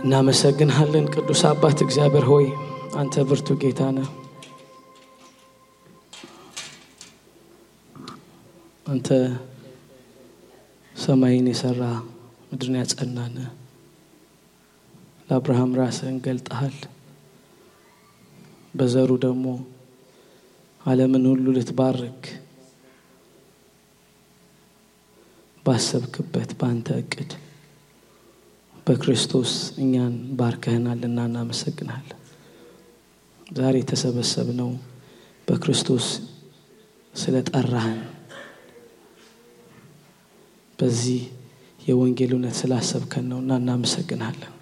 እናመሰግንሃለን ቅዱስ አባት እግዚአብሔር ሆይ አንተ ብርቱ ጌታ ነህ። አንተ ሰማይን የሰራ ምድርን ያጸናነ ለአብርሃም ራስህን ገልጠሃል። በዘሩ ደግሞ ዓለምን ሁሉ ልትባርክ ባሰብክበት ባንተ እቅድ በክርስቶስ እኛን ባርከህናልና እናመሰግናለን። ዛሬ ተሰበሰብነው በክርስቶስ ስለጠራህን በዚህ የወንጌል እውነት ስላሰብከን ነውና እናመሰግናለን።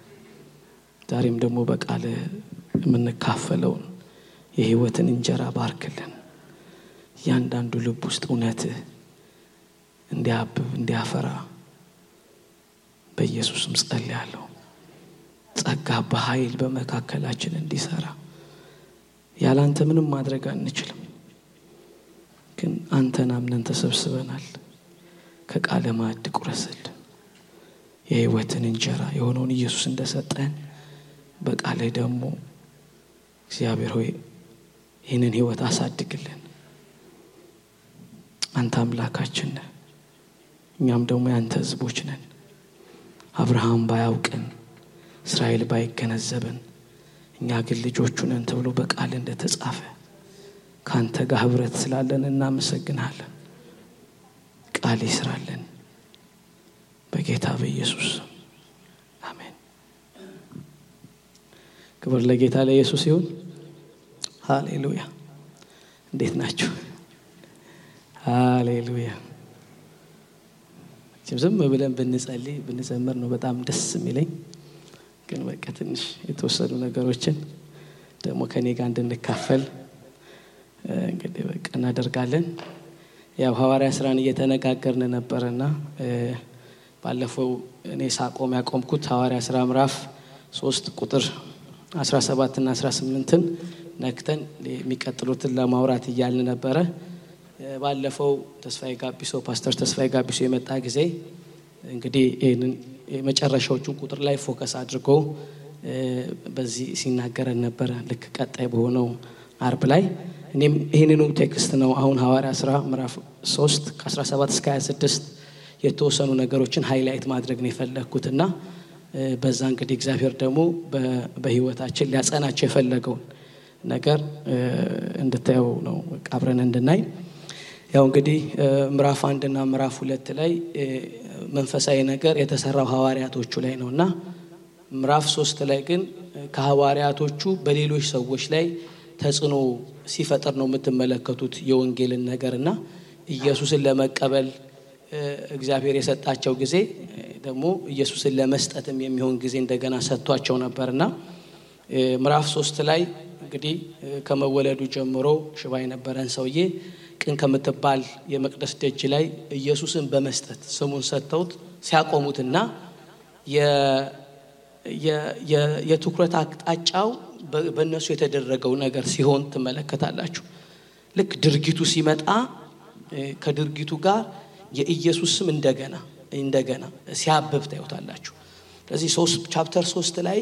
ዛሬም ደግሞ በቃል የምንካፈለው የህይወትን እንጀራ ባርክልን። ያንዳንዱ ልብ ውስጥ እውነት እንዲያብብ እንዲያፈራ በኢየሱስም ጸልያለሁ። ጸጋ በኃይል በመካከላችን እንዲሰራ። ያላንተ ምንም ማድረግ አንችልም፣ ግን አንተን አምነን ተሰብስበናል። ከቃለ ማዕድ ቁረስልን። የህይወትን እንጀራ የሆነውን ኢየሱስ እንደሰጠን በቃል ደግሞ እግዚአብሔር ሆይ ይህንን ህይወት አሳድግልን። አንተ አምላካችን ነህ፣ እኛም ደግሞ ያንተ ህዝቦች ነን። አብርሃም ባያውቅን እስራኤል ባይገነዘብን እኛ ግን ልጆቹ ነን ተብሎ በቃል እንደተጻፈ ካንተ ጋር ህብረት ስላለን እናመሰግናለን። ቃል ይስራልን በጌታ በኢየሱስ አሜን። ክብር ለጌታ ለኢየሱስ ይሁን። ሃሌሉያ። እንዴት ናችሁ? ሃሌሉያ። ዝም ብለን ብንዘምር ነው በጣም ደስ የሚለኝ፣ ግን በቃ ትንሽ የተወሰኑ ነገሮችን ደግሞ ከኔ ጋር እንድንካፈል እንግዲህ በቃ እናደርጋለን። ያው ሐዋርያ ሥራን እየተነጋገርን ነበርና ባለፈው እኔ ሳቆም ያቆምኩት ሐዋርያ ሥራ ምዕራፍ 3 ቁጥር 17 እና 18ን ነክተን የሚቀጥሉትን ለማውራት እያልን ነበረ። ባለፈው ተስፋዬ ጋቢሶ ፓስተር ተስፋዬ ጋቢሶ የመጣ ጊዜ እንግዲህ ይሄንን የመጨረሻዎቹን ቁጥር ላይ ፎከስ አድርጎ በዚህ ሲናገረን ነበረ። ልክ ቀጣይ በሆነው አርብ ላይ እኔም ይሄንኑ ቴክስት ነው አሁን ሐዋርያ ሥራ ምዕራፍ 3 ከ17 እስከ 26 የተወሰኑ ነገሮችን ሃይላይት ማድረግ ነው የፈለኩትና በዛ እንግዲህ እግዚአብሔር ደግሞ በህይወታችን ሊያጸናቸው የፈለገው ነገር እንድታየው ነው አብረን እንድናይ። ያው እንግዲህ ምዕራፍ 1 እና ምዕራፍ 2 ላይ መንፈሳዊ ነገር የተሰራው ሐዋርያቶቹ ላይ ነውና ምዕራፍ 3 ላይ ግን ከሐዋርያቶቹ በሌሎች ሰዎች ላይ ተጽዕኖ ሲፈጠር ነው የምትመለከቱት የወንጌልን ነገርና ኢየሱስን ለመቀበል እግዚአብሔር የሰጣቸው ጊዜ ደግሞ ኢየሱስን ለመስጠትም የሚሆን ጊዜ እንደገና ሰጥቷቸው ነበርና ምዕራፍ 3 ላይ እንግዲህ ከመወለዱ ጀምሮ ሽባ የነበረን ሰውዬ ቅን ከምትባል የመቅደስ ደጅ ላይ ኢየሱስን በመስጠት ስሙን ሰጥተውት ሲያቆሙትና የትኩረት አቅጣጫው በእነሱ የተደረገው ነገር ሲሆን ትመለከታላችሁ። ልክ ድርጊቱ ሲመጣ ከድርጊቱ ጋር የኢየሱስ ስም እንደገና ሲያብብ ታዩታላችሁ። ስለዚህ ቻፕተር 3 ላይ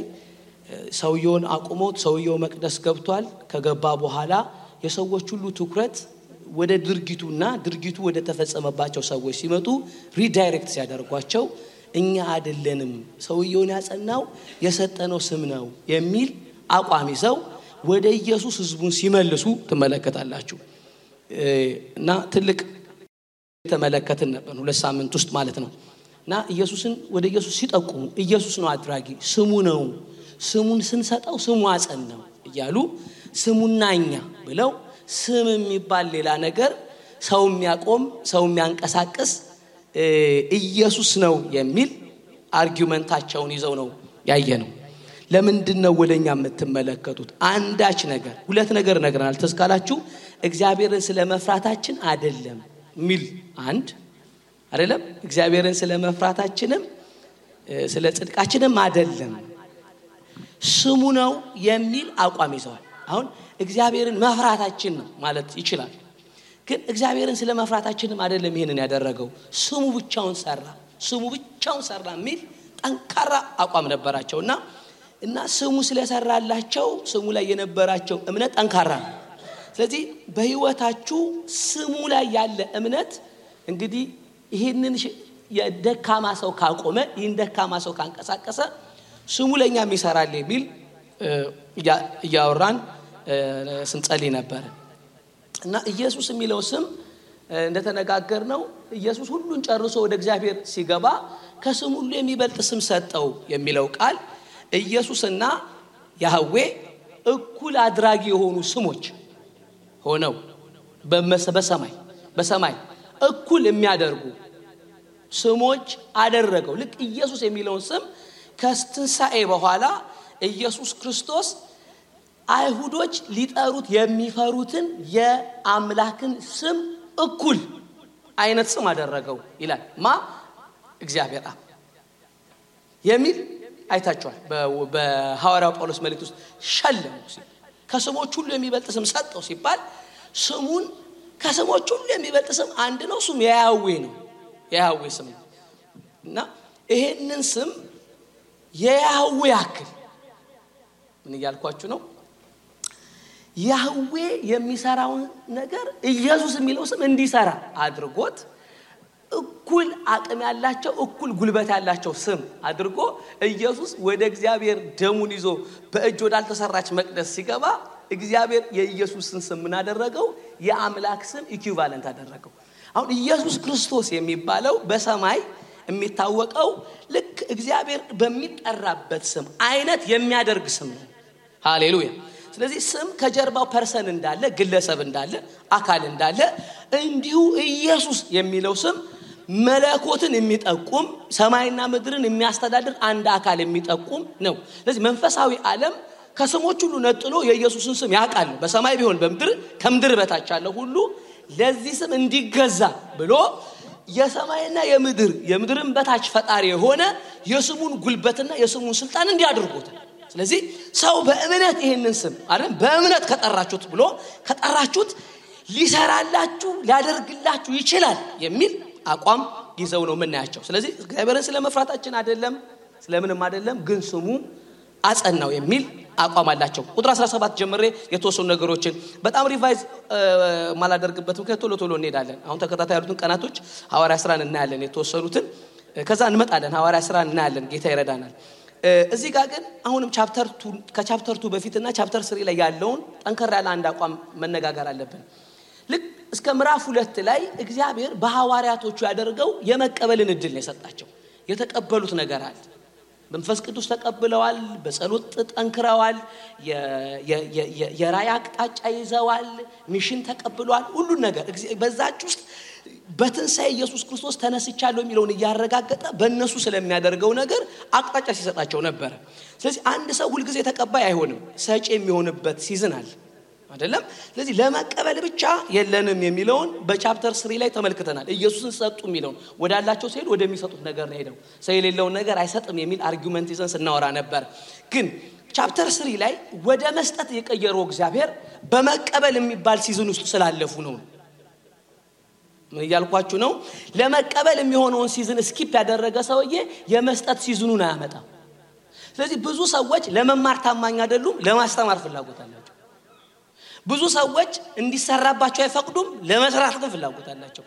ሰውየውን አቁሞት ሰውየው መቅደስ ገብቷል። ከገባ በኋላ የሰዎች ሁሉ ትኩረት ወደ ድርጊቱና ድርጊቱ ወደ ተፈጸመባቸው ሰዎች ሲመጡ ሪዳይሬክት ሲያደርጓቸው እኛ አይደለንም ሰውየውን ያጸናው የሰጠነው ስም ነው የሚል አቋም ይዘው ወደ ኢየሱስ ህዝቡን ሲመልሱ ትመለከታላችሁ። እና ትልቅ ተመለከትን ነበር 2 ሳምንት ውስጥ ማለት ነው። እና ኢየሱስን ወደ ኢየሱስ ሲጠቁሙ ኢየሱስ ነው አድራጊ፣ ስሙ ነው፣ ስሙን ስንሰጠው ስሙ አጸናው እያሉ ስሙናኛ ብለው ስም የሚባል ሌላ ነገር ሰው የሚያቆም ሰው የሚያንቀሳቅስ ኢየሱስ ነው የሚል አርጊውመንታቸውን ይዘው ነው ያየነው። ለምንድነው ወደኛ የምትመለከቱት? አንዳች ነገር ሁለት ነገር ነግረናል ተስካላችሁ። እግዚአብሔርን ስለመፍራታችን አይደለም ሚል አንድ አይደለም፣ እግዚአብሔርን ስለመፍራታችንም ስለ ጽድቃችንም አይደለም ስሙ ነው የሚል አቋም ይዘዋል። አሁን እግዚአብሔርን መፍራታችን ነው ማለት ይችላል፣ ግን እግዚአብሔርን ስለመፍራታችንም አይደለም ይሄንን ያደረገው ስሙ ብቻውን ሰራ ሚል ጠንካራ አቋም ነበራቸውና እና ስሙ ስለሰራላቸው ስሙ ላይ የነበራቸው እምነት ጠንካራ ነው። ስለዚህ በህይወታችሁ ስሙ ላይ ያለ እምነት እንግዲህ ይሄንን የደካማ ሰው ካቆመ ይሄን ደካማ ሰው ካንቀሳቀሰ ስሙ ለኛም ይሰራል የሚል ያወራን ስንጸልይ ነበር። እና ኢየሱስ የሚለው ስም እንደተነጋገርነው ኢየሱስ ሁሉን ጨርሶ ወደ እግዚአብሔር ሲገባ ከስሙ ሁሉ የሚበልጥ ስም ሰጠው የሚለው ቃል ኢየሱስና ያህዌ እኩል አድራጊ የሆኑ ስሞች ሆነው በሰማይ እኩል የሚያደርጉ ስሞች አደረገው። ልክ ኢየሱስ የሚለውን ስም ከትንሣኤ በኋላ ኢየሱስ ክርስቶስ አይሁዶች ሊጠሩት የሚፈሩትን የአምላክን ስም እኩል አይነት ስም አደረገው ይላል። እግዚአብሔር አብ የሚል አይታችኋል። በሐዋርያው ጳውሎስ መልእክት ውስጥ ሸለመው ከስሞች ሁሉ የሚበልጥ ስም ሰጠው ሲባል ስሙን ከስሞች ሁሉ የሚበልጥ ስም አንድ ነው። እሱም ያህዌ ነው። ያህዌ ስም እና ይሄንን ስም የያህዌ ያክል ምን እያልኳችሁ ነው? ያህዌ የሚሰራው ነገር ኢየሱስ የሚለው ስም እንዲሰራ አድርጎት እኩል አቅም ያላቸው እኩል ጉልበት ያላቸው ስም አድርጎ ኢየሱስ ወደ እግዚአብሔር ደሙን ይዞ በእጅ ወዳልተሰራች መቅደስ ሲገባ እግዚአብሔር የኢየሱስን ስም ምን አደረገው? የአምላክ ስም ኢኩቫለንት አደረገው። አሁን ኢየሱስ ክርስቶስ የሚባለው በሰማይ የሚታወቀው ልክ እግዚአብሔር በሚጠራበት ስም አይነት የሚያደርግ ስም ነው። ሃሌሉያ። ስለዚህ ስም ከጀርባው ፐርሰን እንዳለ ግለሰብ እንዳለ አካል እንዳለ እንዲሁ ኢየሱስ የሚለው ስም መለኮትን የሚጠቁም ሰማይና ምድርን የሚያስተዳድር አንድ አካል የሚጠቁም ነው። ስለዚህ መንፈሳዊ ዓለም ከስሞች ሁሉ ነጥሎ የኢየሱስን ስም ያውቃል። በሰማይ ቢሆን በምድር ከምድር በታች ያለው ሁሉ ለዚህ ስም እንዲገዛ ብሎ የሰማይና የምድርን በታች ፈጣሪ የሆነ የስሙን ጉልበትና የስሙን ስልጣን እንዲያደርጉት። ስለዚህ ሰው በእምነት ይሄንን ስም አይደል በእምነት ከጠራችሁት ብሎ ከጠራችሁት ሊሰራላችሁ ሊያደርግላችሁ ይችላል የሚል አቋም ይዘው ነው የምናያቸው። ስለዚህ እግዚአብሔርን ስለመፍራታችን አይደለም ስለምንም አይደለም ግን ስሙ አጸናው የሚል አቋም አላቸው። ቁጥር 17 ጀምሬ የተወሰኑ ነገሮችን በጣም ሪቫይዝ ማላደርግበት ምክንያት ቶሎ እንሄዳለን። አሁን ተከታታይ ያሉትን ቀናቶች ሐዋርያ ሥራን እናያለን የተወሰኑትን ከዛ እንመጣለን። ሐዋርያ ሥራን እናያለን ጌታ ይረዳናል። እዚህ ጋር ግን አሁንም ከቻፕተር 2 በፊትና ቻፕተር 3 ላይ ያለውን ጠንከር ያለ አንድ አቋም መነጋገር አለብን። ልክ እስከ ምዕራፍ 2 ላይ እግዚአብሔር በሐዋርያቶቹ ያደርገው የመቀበልን እድል ነው የሰጣቸው። የተቀበሉት ነገር አለ። መንፈስ ቅዱስ ተቀብለዋል፣ በጸሎት ጠንክረዋል፣ የራእይ አቅጣጫ ይዘዋል፣ ሚሽን ተቀብለዋል። ሁሉ ነገር በዛች ውስጥ በትንሣኤ ኢየሱስ ክርስቶስ ተነስቻለሁ የሚለውን ያረጋገጠ በእነሱ ስለሚያደርገው ነገር አቅጣጫ ሲሰጣቸው ነበር። ስለዚህ አንድ ሰው ሁሉ ጊዜ ተቀባይ አይሆንም፣ ሰጪ የሚሆንበት ሲዝን አለ አይደለም። ስለዚህ ለመቀበል ብቻ የለንም የሚለውን በቻፕተር 3 ላይ ተመልክተናል። ኢየሱስን ሰጡ የሚለውን ወዳላቸው ሲሄድ ወደሚሰጡት ነገር ነው ሄደው ሰው የሌለውን ነገር አይሰጥም የሚል አርጊውመንት ይዘን ስናወራ ነበር። ግን ቻፕተር 3 ላይ ወደ መስጠት የቀየረው እግዚአብሔር በመቀበል የሚባል ሲዝን ውስጥ ስላለፉ ነው። ምን ያልኳችሁ ነው? ለመቀበል የሚሆነውን ሲዝን ስኪፕ ያደረገ ሰውዬ የመስጠት ሲዝኑን አያመጣም። ስለዚህ ብዙ ሰዎች ለመማር ታማኝ አይደሉም፣ ለማስተማር ፍላጎት አላቸው። ብዙ ሰዎች እንዲሰራባቸው አይፈቅዱም፣ ለመስራት ግን ፍላጎት አላቸው።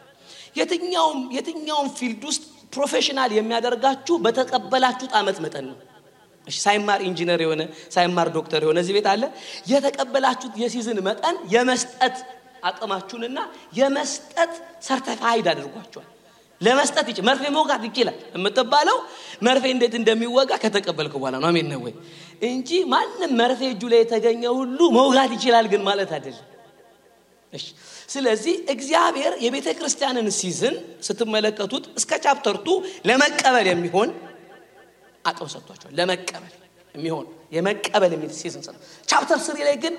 የትኛውም ፊልድ ውስጥ ፕሮፌሽናል የሚያደርጋችሁ በተቀበላችሁት ዓመት መጠን ነው። እሺ ሳይማር ኢንጂነር የሆነ ሳይማር ዶክተር የሆነ እዚህ ቤት አለ። የተቀበላችሁት የሲዝን መጠን የመስጠት አቅማችሁንና የመስጠት ሰርቲፋይድ አድርጓችኋል። ለመስጠት ይችላል። መርፌ መውጋት ይችላል የምትባለው መርፌ እንዴት እንደሚወጋ ከተቀበልኩ በኋላ ነው። አሜን ነው ወይ? እንጂ ማንም መርፌ እጁ ላይ የተገኘ ሁሉ መውጋት ይችላል ግን ማለት አይደለም። እሺ ስለዚህ እግዚአብሔር የቤተ ክርስቲያንን ሲዝን ስትመለከቱት እስከ ቻፕተር 2 ለመቀበል የሚሆን አቅም ሰጥቷቸዋል። ለመቀበል የሚሆን የመቀበል የሚል ሲዝን ሰጥቷል። ቻፕተር 3 ላይ ግን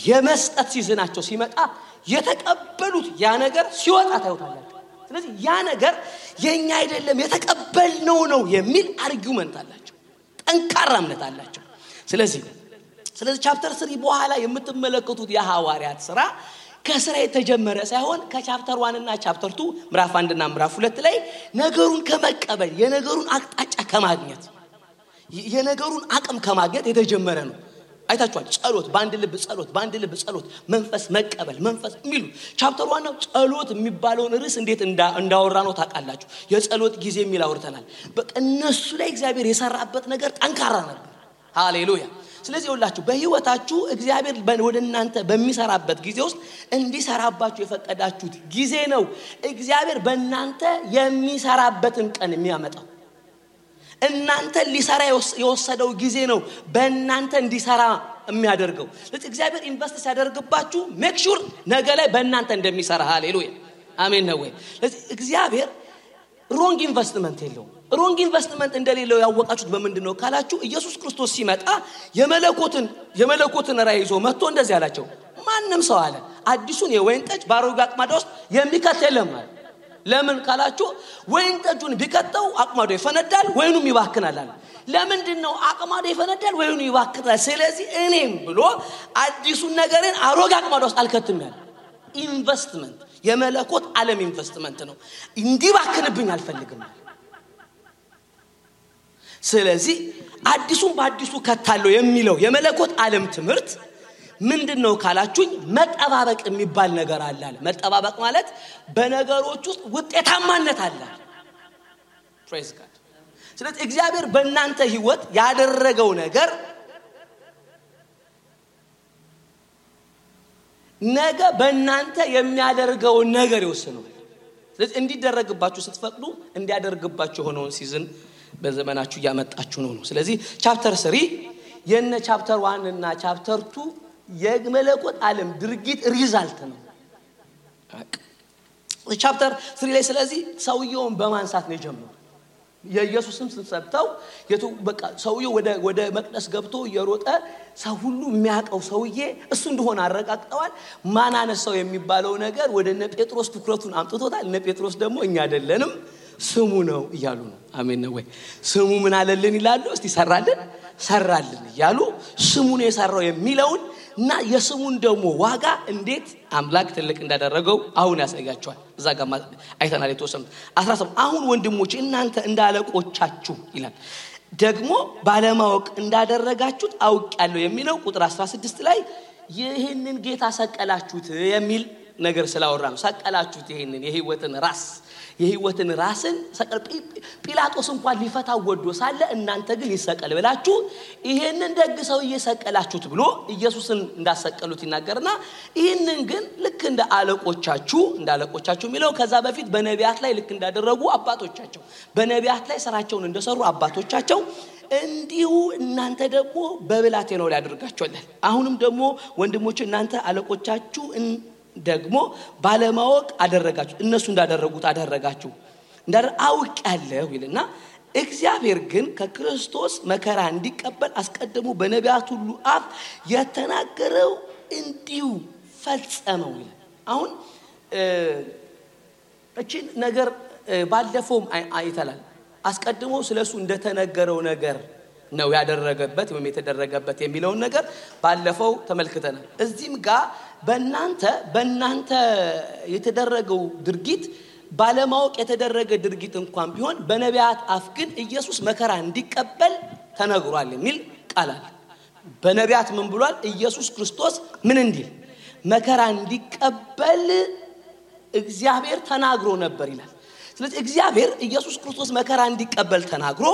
የመስጠት ሲዝናቸው ሲመጣ የተቀበሉት ያ ነገር ሲወጣ ታዩታላችሁ። ስለዚህ ያ ነገር የኛ አይደለም የተቀበልነው ነው የሚል አርጊውመንት አላቸው፣ ጠንካራ እምነት አላቸው። ስለዚህ ቻፕተር 3 በኋላ የምትመለከቱት የሐዋርያት ሥራ ከሥራ የተጀመረ ሳይሆን ከቻፕተር 1 እና ቻፕተር 2 ምዕራፍ 1 እና ምዕራፍ 2 ላይ ነገሩን ከመቀበል የነገሩን አቅጣጫ ከማግኘት የነገሩን አቅም ከማግኘት የተጀመረ ነው። አይታችኋል። ጸሎት በአንድ ልብ ጸሎት መንፈስ መቀበል መንፈስ የሚሉ ቻፕተር 1 ነው። ጸሎት የሚባለውን ርዕስ እንዴት እንዳወራ ነው ታውቃላችሁ። የጸሎት ጊዜ የሚል አውርተናል። በቃ እነሱ ላይ እግዚአብሔር የሰራበት ነገር ጠንካራ ነበር። ሃሌሉያ። ስለዚህ ሁላችሁ በህይወታችሁ እግዚአብሔር ወደ እናንተ በሚሰራበት ጊዜ ውስጥ እንዲሰራባችሁ የፈቀዳችሁት ጊዜ ነው እግዚአብሔር በእናንተ የሚሰራበትን ቀን የሚያመጣው። እናንተ ሊሰራ የወሰደው ጊዜ ነው በእናንተ እንዲሰራ የሚያደርገው። ስለዚህ እግዚአብሔር ኢንቨስት ሲያደርግባችሁ ሜክ ሹር ነገ ላይ በእናንተ እንደሚሰራ። ሃሌሉያ አሜን ነው ወይ? ስለዚህ እግዚአብሔር ሮንግ ኢንቨስትመንት የለውም። ሮንግ ኢንቨስትመንት እንደሌለው ያወቃችሁት በምንድነው ካላችሁ ኢየሱስ ክርስቶስ ሲመጣ የመለኮትን ራዕይ ይዞ መጥቶ እንደዚህ አላቸው። ማንም ሰው አለ አዲሱን የወይን ጠጅ ባሮጌ አቅማዳ ውስጥ የሚከት የለም አለ። ለምን ካላችሁ ወይን ጠጁን ቢከተው አቅማዳው ይፈነዳል ወይኑም ይባክናል አለ። ለምንድነው አቅማዳው ይፈነዳል ወይኑ ይባክናል? ስለዚህ እኔም ብሎ አዲሱን ነገርን አሮጌ አቅማዳ ውስጥ አልከትም ያለ ኢንቨስትመንት የመለኮት ዓለም ኢንቨስትመንት ነው። እንዲባክንብኝ አልፈልግም። ስለዚህ አዲሱን በአዲሱ ከታለው የሚለው የመለኮት ዓለም ትምህርት ምንድነው ካላችሁኝ መጠባበቅ የሚባል ነገር አለ። መጠባበቅ ማለት በነገሮች ውስጥ ውጤታማነት አለ። ፕሬዝ ጋድ። ስለዚህ እግዚአብሔር በእናንተ ህይወት ያደረገው ነገር ነገ በእናንተ የሚያደርገው ነገር ይወስነው። ስለዚህ እንዲደረግባችሁ ስትፈቅዱ እንዲያደርግባችሁ ሆነውን ሲዝን በዘመናችሁ ያመጣችሁ ነው። ስለዚህ ቻፕተር 3 የነ ቻፕተር 1 እና ቻፕተር 2 የመለኮት ዓለም ድርጊት ሪዛልት ነው። ቻፕተር 3 ላይ ስለዚህ ሰውየውን በማንሳት ነው የጀመረው። የኢየሱስም ስንሰብተው በቃ ሰውየው ወደ መቅደስ ገብቶ የሮጠ ሰው ሁሉ የሚያቀው ሰውዬ እሱ እንደሆነ አረጋግጠዋል። ማን አነሳው የሚባለው ነገር ወደ እነ ጴጥሮስ ትኩረቱን አምጥቶታል። እነ ጴጥሮስ ደግሞ እኛ አይደለንም ስሙ ነው ይያሉ ነው። አሜን ነው ወይ? ስሙ ምን አለልን ይላሉ። እስቲ ሰራልን ይያሉ ስሙ ነው የሰራው የሚለውን እና የስሙን ደግሞ ዋጋ እንዴት አምላክ ትልቅ እንዳደረገው አሁን ያሳያቸዋል። እዛ ጋር አይተናል የተወሰነ 17 አሁን ወንድሞቼ እናንተ እንዳለቆቻችሁ ይላል ደግሞ ባለማወቅ እንዳደረጋችሁት አውቃለሁ የሚለው ቁጥር 16 ላይ ይሄንን ጌታ ሰቀላችሁት የሚል ነገር ስላወራ ነው። ሰቀላችሁት ይሄንን የህይወትን ራስን ሰቀል ጲላጦስ እንኳን ሊፈታው ወዶ ሳለ እናንተ ግን ይሰቀል ብላችሁ ይሄንን ደግ ሰው እየሰቀላችሁት ብሎ ኢየሱስን እንዳሰቀሉት ይናገርና ይሄንን ግን ልክ እንደ አለቆቻችሁ የሚለው ከዛ በፊት በነቢያት ላይ ልክ እንዳደረጉ አባቶቻቸው በነቢያት ላይ ስራቸውን እንደሰሩ አባቶቻቸው እንዲሁ እናንተ ደግሞ በብላቴናው ላይ አድርጋችኋል። አሁንም ደግሞ ወንድሞች እናንተ አለቆቻችሁ ደግሞ ባለማወቅ አደረጋችሁ እነሱ እንዳደረጉት አደረጋችሁ አውቃለሁ ይልና እግዚአብሔር ግን ከክርስቶስ መከራ እንዲቀበል አስቀድሞ በነቢያት ሁሉ አፍ የተናገረው እንዲሁ ፈጸመው ይላል። አሁን እቺ ነገር ባለፈው አይተናል። አስቀድሞ ስለሱ እንደተነገረው ነገር ነው ያደረገበት ወይም የተደረገበት የሚለውን ነገር ባለፈው ተመልክተናል። እዚህም ጋር በእናንተ የተደረገው ድርጊት ባለማወቅ የተደረገ ድርጊት እንኳን ቢሆን በነቢያት አፍ ግን ኢየሱስ መከራ እንዲቀበል ተነግሯል የሚል ቃል አለ። በነቢያት ምን ብሏል? ኢየሱስ ክርስቶስ ምን እንዲል መከራ እንዲቀበል እግዚአብሔር ተናግሮ ነበር ይላል። ስለዚህ እግዚአብሔር ኢየሱስ ክርስቶስ መከራ እንዲቀበል ተናግሮ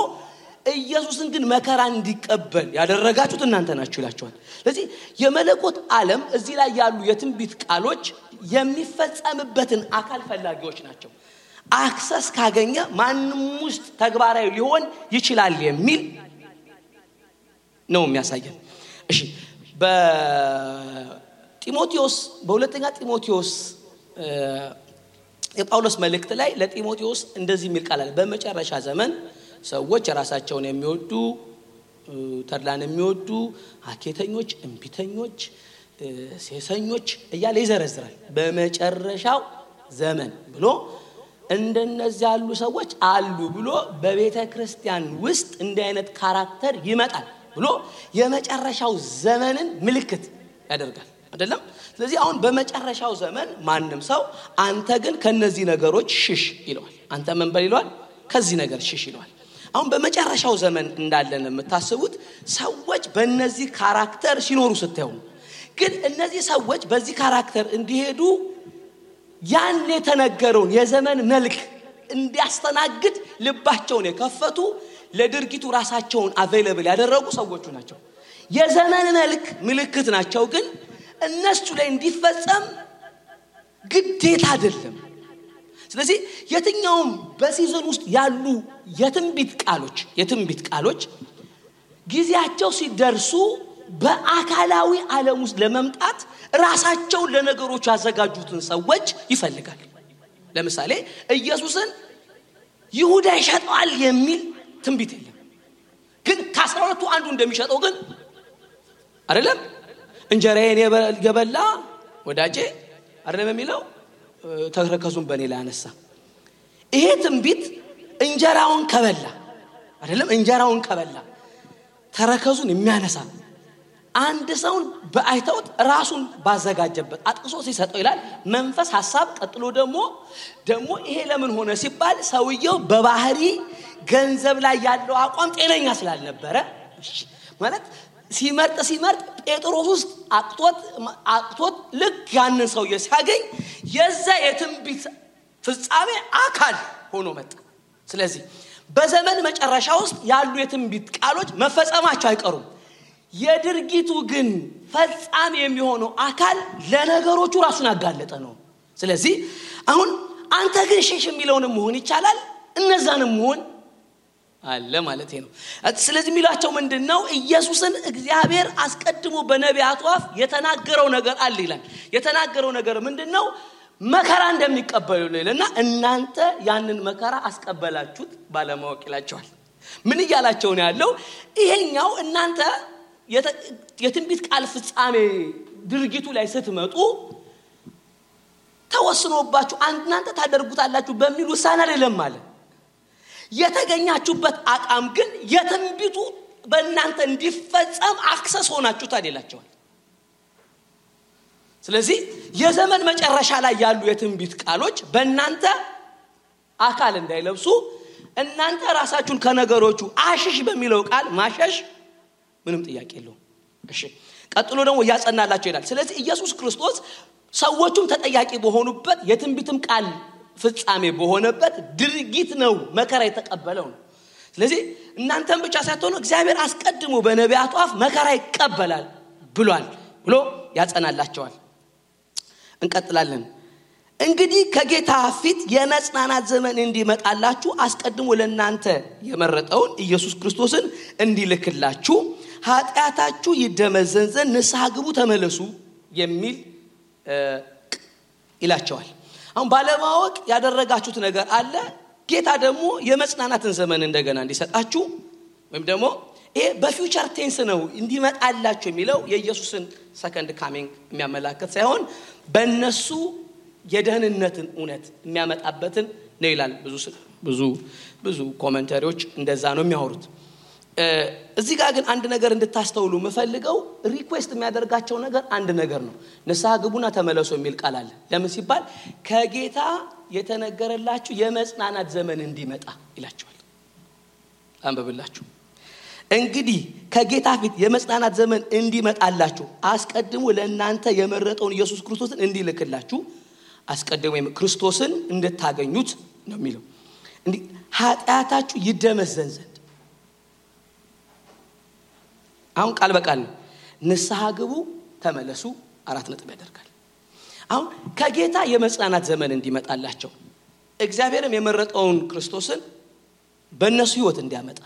ኢየሱስን ግን መከራ እንዲቀበል ያደረጋችሁት እናንተ ናችሁ ይላችኋል። ስለዚህ የመለኮት ዓለም እዚህ ላይ ያሉ የትንቢት ቃሎች የሚፈጸምበትን አካል ፈላጊዎች ናቸው። አክሰስ ካገኘ ማንም ውስጥ ተግባራዊ ሊሆን ይችላል የሚል ነው የሚያሳየን። እሺ በሁለተኛ ጢሞቴዎስ የጳውሎስ መልእክት ላይ ለጢሞቴዎስ እንደዚህ የሚል ቃል አለ። በመጨረሻ ዘመን ሰዎች ራሳቸውን የሚወዱ ተድላን የሚወዱ ሐኬተኞች፣ እንቢተኞች፣ ሴሰኞች እያለ ይዘረዝራል። በመጨረሻው ዘመን ብሎ እንደነዚህ ያሉ ሰዎች አሉ ብሎ በቤተ ክርስቲያን ውስጥ እንዲህ አይነት ካራክተር ይመጣል ብሎ የመጨረሻው ዘመንን ምልክት ያደርጋል አይደለም። ስለዚህ አሁን በመጨረሻው ዘመን ማንም ሰው አንተ ግን ከነዚህ ነገሮች ሽሽ ይለዋል። አንተ ምን በል ይለዋል? ከዚህ ነገር ሽሽ ይለዋል። አሁን በመጨረሻው ዘመን እንዳለን የምታስቡት ሰዎች በእነዚህ ካራክተር ሲኖሩ ስታዩ ግን እነዚህ ሰዎች በዚህ ካራክተር እንዲሄዱ ያን የተነገረውን የዘመን መልክ እንዲያስተናግድ ልባቸውን የከፈቱ ለድርጊቱ ራሳቸውን አቬሌብል ያደረጉ ሰዎች ናቸው። የዘመን መልክ ምልክት ናቸው ግን እነሱ ላይ እንዲፈጸም ግዴታ አይደለም። ስለዚህ የትኛውም በሲዝን ውስጥ ያሉ የትንቢት ቃሎች ጊዜያቸው ሲደርሱ በአካላዊ ዓለም ውስጥ ለመምጣት ራሳቸውን ለነገሮች ያዘጋጁትን ሰዎች ይፈልጋል። ለምሳሌ ኢየሱስን ይሁዳ ይሸጣል የሚል ትንቢት የለም። ግን ከ12ቱ አንዱ እንደሚሸጠው ግን አይደለም እንጀራዬን የበላ ወዳጄ አይደለም የሚለው ተረከዙን በኔ ላይ አነሳ። ይሄ ትንቢት እንጀራውን ከበላ ተረከዙን የሚያነሳ አንድ ሰውን በአይተውት ራሱን ባዘጋጀበት አጥቅሶ ሲሰጠው ይላል መንፈስ ሐሳብ ቀጥሎ ደግሞ ይሄ ለምን ሆነ ሲባል ሰውየው በባህሪ ገንዘብ ላይ ያለው አቋም ጤነኛ ስላልነበረ ማለት ሲመርጥ ጴጥሮስ ውስጥ አቅቶት ልክ ያንን ሰውዬ ሲያገኝ የዛ የትንቢት ፍጻሜ አካል ሆኖ መጣ። ስለዚህ በዘመን መጨረሻ ውስጥ ያሉ የትንቢት ቃሎች መፈጸማቸው አይቀሩም። የድርጊቱ ግን ፍጻሜ የሚሆነው አካል ለነገሮቹ ራሱን ያጋለጠ ነው። ስለዚህ አሁን አንተ ግን ሸሽ የሚለውንም መሆን ይቻላል እነዛንም መሆን አለ ማለት ነው። ስለዚህ የሚላቸው ምንድነው ኢየሱስን እግዚአብሔር አስቀድሞ በነቢያቱ አፍ የተናገረው ነገር አለ ይላል። የተናገረው ነገር ምንድነው? መከራ እንደሚቀበሉ ይላልና እናንተ ያንን መከራ አስቀበላችሁት ባለማወቅ ይላቸዋል። ምን ይያላቸው ነው ያለው? ይሄኛው እናንተ የትንቢት ቃል ፍጻሜ ድርጊቱ ላይ ስትመጡ ተወስኖባችሁ እናንተ ታደርጉታላችሁ በሚል ውሳኔ አይደለም ማለት የተገኛችሁበት አቋም ግን የትንቢቱ በእናንተ እንዲፈጸም አክሰስ ሆናችሁ ታደላችኋል። ስለዚህ የዘመን መጨረሻ ላይ ያሉ የትንቢት ቃሎች በእናንተ አካል እንዳይለብሱ እናንተ ራሳችሁን ከነገሮቹ አሽሽ በሚለው ቃል ማሸሽ ምንም ጥያቄ የለውም። እሺ ቀጥሎ ደግሞ ያጸናላችሁ ይላል። ስለዚህ ኢየሱስ ክርስቶስ ሰዎቹም ተጠያቂ በሆኑበት የትንቢትም ቃል ፍጻሜ በሆነበት ድርጊት ነው መከራ የተቀበለው ነው። ስለዚህ እናንተም ብቻ ሳይሆን እግዚአብሔር አስቀድሞ በነቢያቱ አፍ መከራ ይቀበላል ብሏል ብሎ ያጸናላቸዋል። እንቀጥላለን። እንግዲህ ከጌታ ፊት የመጽናናት ዘመን እንዲመጣላችሁ አስቀድሞ ለእናንተ የመረጠውን ኢየሱስ ክርስቶስን እንዲልክላችሁ ኃጢአታችሁ ይደመዘን ዘንድ ንስሐ ግቡ ተመለሱ የሚል ይላቸዋል። አሁን ባለማወቅ ያደረጋችሁት ነገር አለ። ጌታ ደግሞ የመጽናናትን ዘመን እንደገና እንዲሰጣችሁ ወይም ደግሞ ይሄ በፊውቸር ቴንስ ነው እንዲመጣላችሁ የሚለው የኢየሱስን ሰከንድ ካሚንግ የሚያመላክት ሳይሆን በእነሱ የደህንነትን እውነት የሚያመጣበትን ነው ይላል። ብዙ ኮሜንታሪዎች እንደዛ ነው የሚያወሩት። እዚህ ጋር ግን አንድ ነገር እንድታስተውሉ የምፈልገው ሪኩዌስት የሚያደርጋቸው ነገር አንድ ነገር ነው። ንስሐ ግቡና ተመለሱ የሚል ቃል አለ። ለምን ሲባል ከጌታ የተነገረላችሁ የመጽናናት ዘመን እንዲመጣ ይላችኋል። አንብብላችሁ እንግዲህ ከጌታ ፊት የመጽናናት ዘመን እንዲመጣላችሁ አስቀድሞ ለእናንተ የመረጠውን ኢየሱስ ክርስቶስን እንዲልክላችሁ አስቀድሞ ክርስቶስን እንድታገኙት ነው የሚለው። እንዴ ኃጢአታችሁ ይደመዘን ዘንድ አሁን ቃል በቃል ንስሐ ግቡ ተመለሱ 4 ነጥብ ያደርጋል። አሁን ከጌታ የመጽናናት ዘመን እንዲመጣላቸው እግዚአብሔርም የመረጠውን ክርስቶስን በእነሱ ህይወት እንዲያመጣ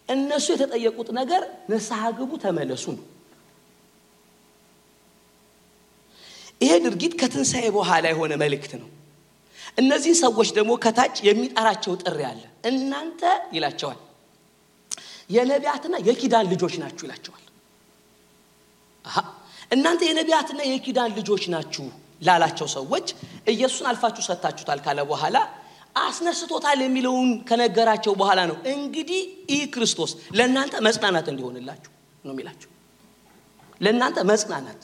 እነሱ የተጠየቁት ነገር ንስሐ ግቡ ተመለሱ ነው። ይሄ ድርጊት ከትንሣኤ በኋላ የሆነ መልእክት ነው። እነዚህ ሰዎች ደግሞ ከታች የሚጠራቸው ጥሪ አለ። እናንተ ይላቸዋል የነቢያትና የኪዳን ልጆች ናችሁ ይላቸዋል። እናንተ የነቢያትና የኪዳን ልጆች ናችሁ ላላቸው ሰዎች ኢየሱስን አልፋችሁ ሰጣችሁታል ካለ በኋላ አስነስቶታል የሚለውን ከነገራቸው በኋላ ነው እንግዲህ ይህ ክርስቶስ ለእናንተ መጽናናት እንዲሆንላችሁ ነው የሚላቸው። ለእናንተ መጽናናት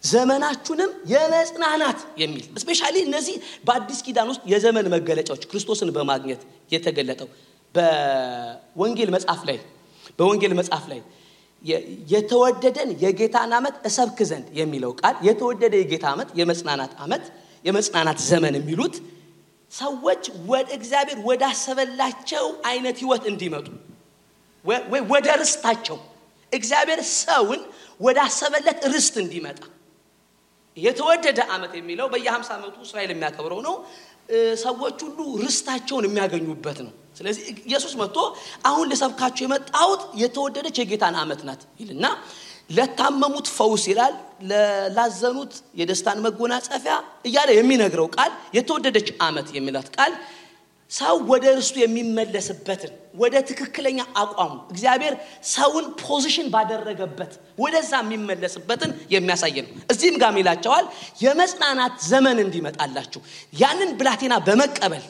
ዘመናችሁንም የመጽናናት የሚል ስፔሻሊ እነዚህ በአዲስ ኪዳን ውስጥ የዘመን መገለጫዎች ክርስቶስን በማግኘት የተገለጠው በወንጌል መጽሐፍ ላይ የተወደደን የጌታን ዓመት እሰብክ ዘንድ የሚለው ቃል የተወደደ የጌታ ዓመት የመጽናናት ዘመን የሚሉት ሰዎች ወደ እግዚአብሔር ወዳሰበላቸው አይነት ህይወት እንዲመጡ ወይ ወደ ርስታቸው እግዚአብሔር ሰውን ወዳሰበለት ርስት እንዲመጣ የተወደደ ዓመት የሚለው በየ50 ዓመቱ እስራኤል የሚያከብረው ነው ሰዎች ሁሉ ርስታቸውን የሚያገኙበት ነው ስለዚህ ኢየሱስ መጥቶ አሁን ለሰብካቸው የመጣውት የተወደደች የጌታን ዓመት ናት ይልና ለታመሙት ፈውስ ይላል ለላዘኑት የደስታን መጎናጸፊያ እያለ የሚነግረው ቃል የተወደደች ዓመት የሚላት ቃል ሰው ወደ ርስቱ የሚመለስበትን ወደ ትክክለኛ አቋሙ እግዚአብሔር ሰውን ፖዚሽን ባደረገበት ወደዛ የሚመለስበትን የሚያሳይ ነው እዚህም ጋር ይላቸዋል የመጽናናት ዘመን እንዲመጣላችሁ ያንን ብላቴና በመቀበል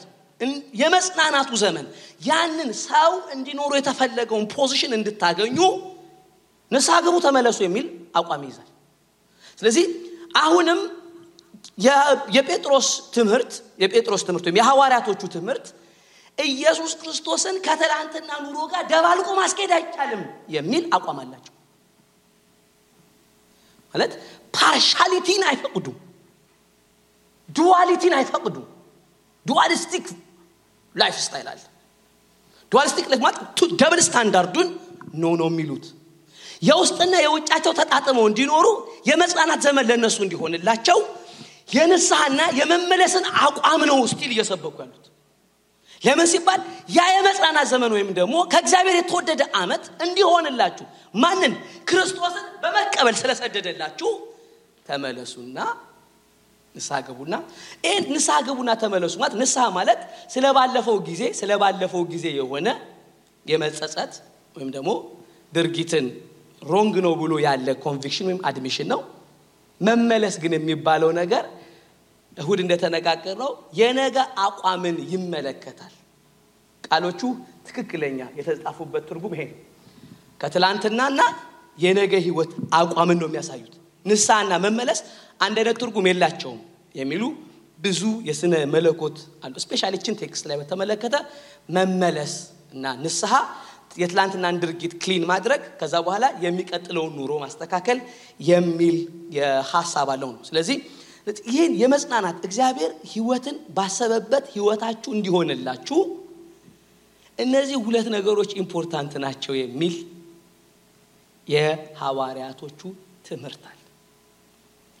የመጽናናቱ ዘመን ያንን ሰው እንዲኖር የተፈለገውን ፖዚሽን እንድታገኙ ንስሐ ግቡ ተመለሱ የሚል አቋም ይዛል ስለዚህ አሁንም የጴጥሮስ ትምህርት ወይም የሐዋርያቶቹ ትምህርት ኢየሱስ ክርስቶስን ከትላንትና ኑሮ ጋር ደባልቆ ማስኬድ አይቻልም የሚል አቋም አላቸው ማለት ፓርሻሊቲን አይፈቅዱም ዱዋሊቲን አይፈቅዱም ዱዋሊስቲክ ላይፍ ስታይል አለ ዱዋሊስቲክ ላይፍ ማለት ደብል ስታንዳርዱን ነው የሚሉት የውስጥና የውጫቸው ተጣጥመው እንዲኖሩ የመጽናናት ዘመን ለነሱ እንዲሆንላቸው የንስሐና የመመለስን አቋም ነው ስቲል እየሰበኩ ያሉት ለምን ሲባል ያ የመጽናናት ዘመን ወይም ደግሞ ከእግዚአብሔር የተወደደ ዓመት እንዲሆንላችሁ ማንን ክርስቶስን በመቀበል ስለሰደደላችሁ ተመለሱና ንስሐ ገቡና ተመለሱ ማለት ንስሐ ማለት ስለባለፈው ጊዜ የሆነ የመጸጸት ወይም ደግሞ ድርጊትን ሮንግ ነው ብሎ ያለ ኮንቪክሽን ወይም አድሚሽን ነው መመለስ ግን የሚባለው ነገር እሁድ እንደተነጋገረው የነገ አቋምን ይመለከታል ቃሎቹ ትክክለኛ የተጻፉበት ትርጉም ይሄ ከትላንትናና የነገ ህይወት አቋምን ነው የሚያሳዩት ንስሐና መመለስ አንድ አይነት ትርጉም የላቸውም የሚሉ ብዙ የስነ መለኮት አሉ ስፔሻሊ ቺን ቴክስት ላይ በተመለከተ መመለስ እና ንስሐ የትላንትናን ድርጊት ክሊን ማድረግ ከዛ በኋላ የሚቀጥለውን ኑሮ ማስተካከል የሚል የሐሳብ አለው ነው ስለዚህ ይሄን የመጽናናት እግዚአብሔር ህይወትን ባሰበበት ህይወታችሁ እንዲሆንላችሁ እነዚህ ሁለት ነገሮች ኢምፖርታንት ናቸው የሚል የሐዋርያቶቹ ትምህርት አለ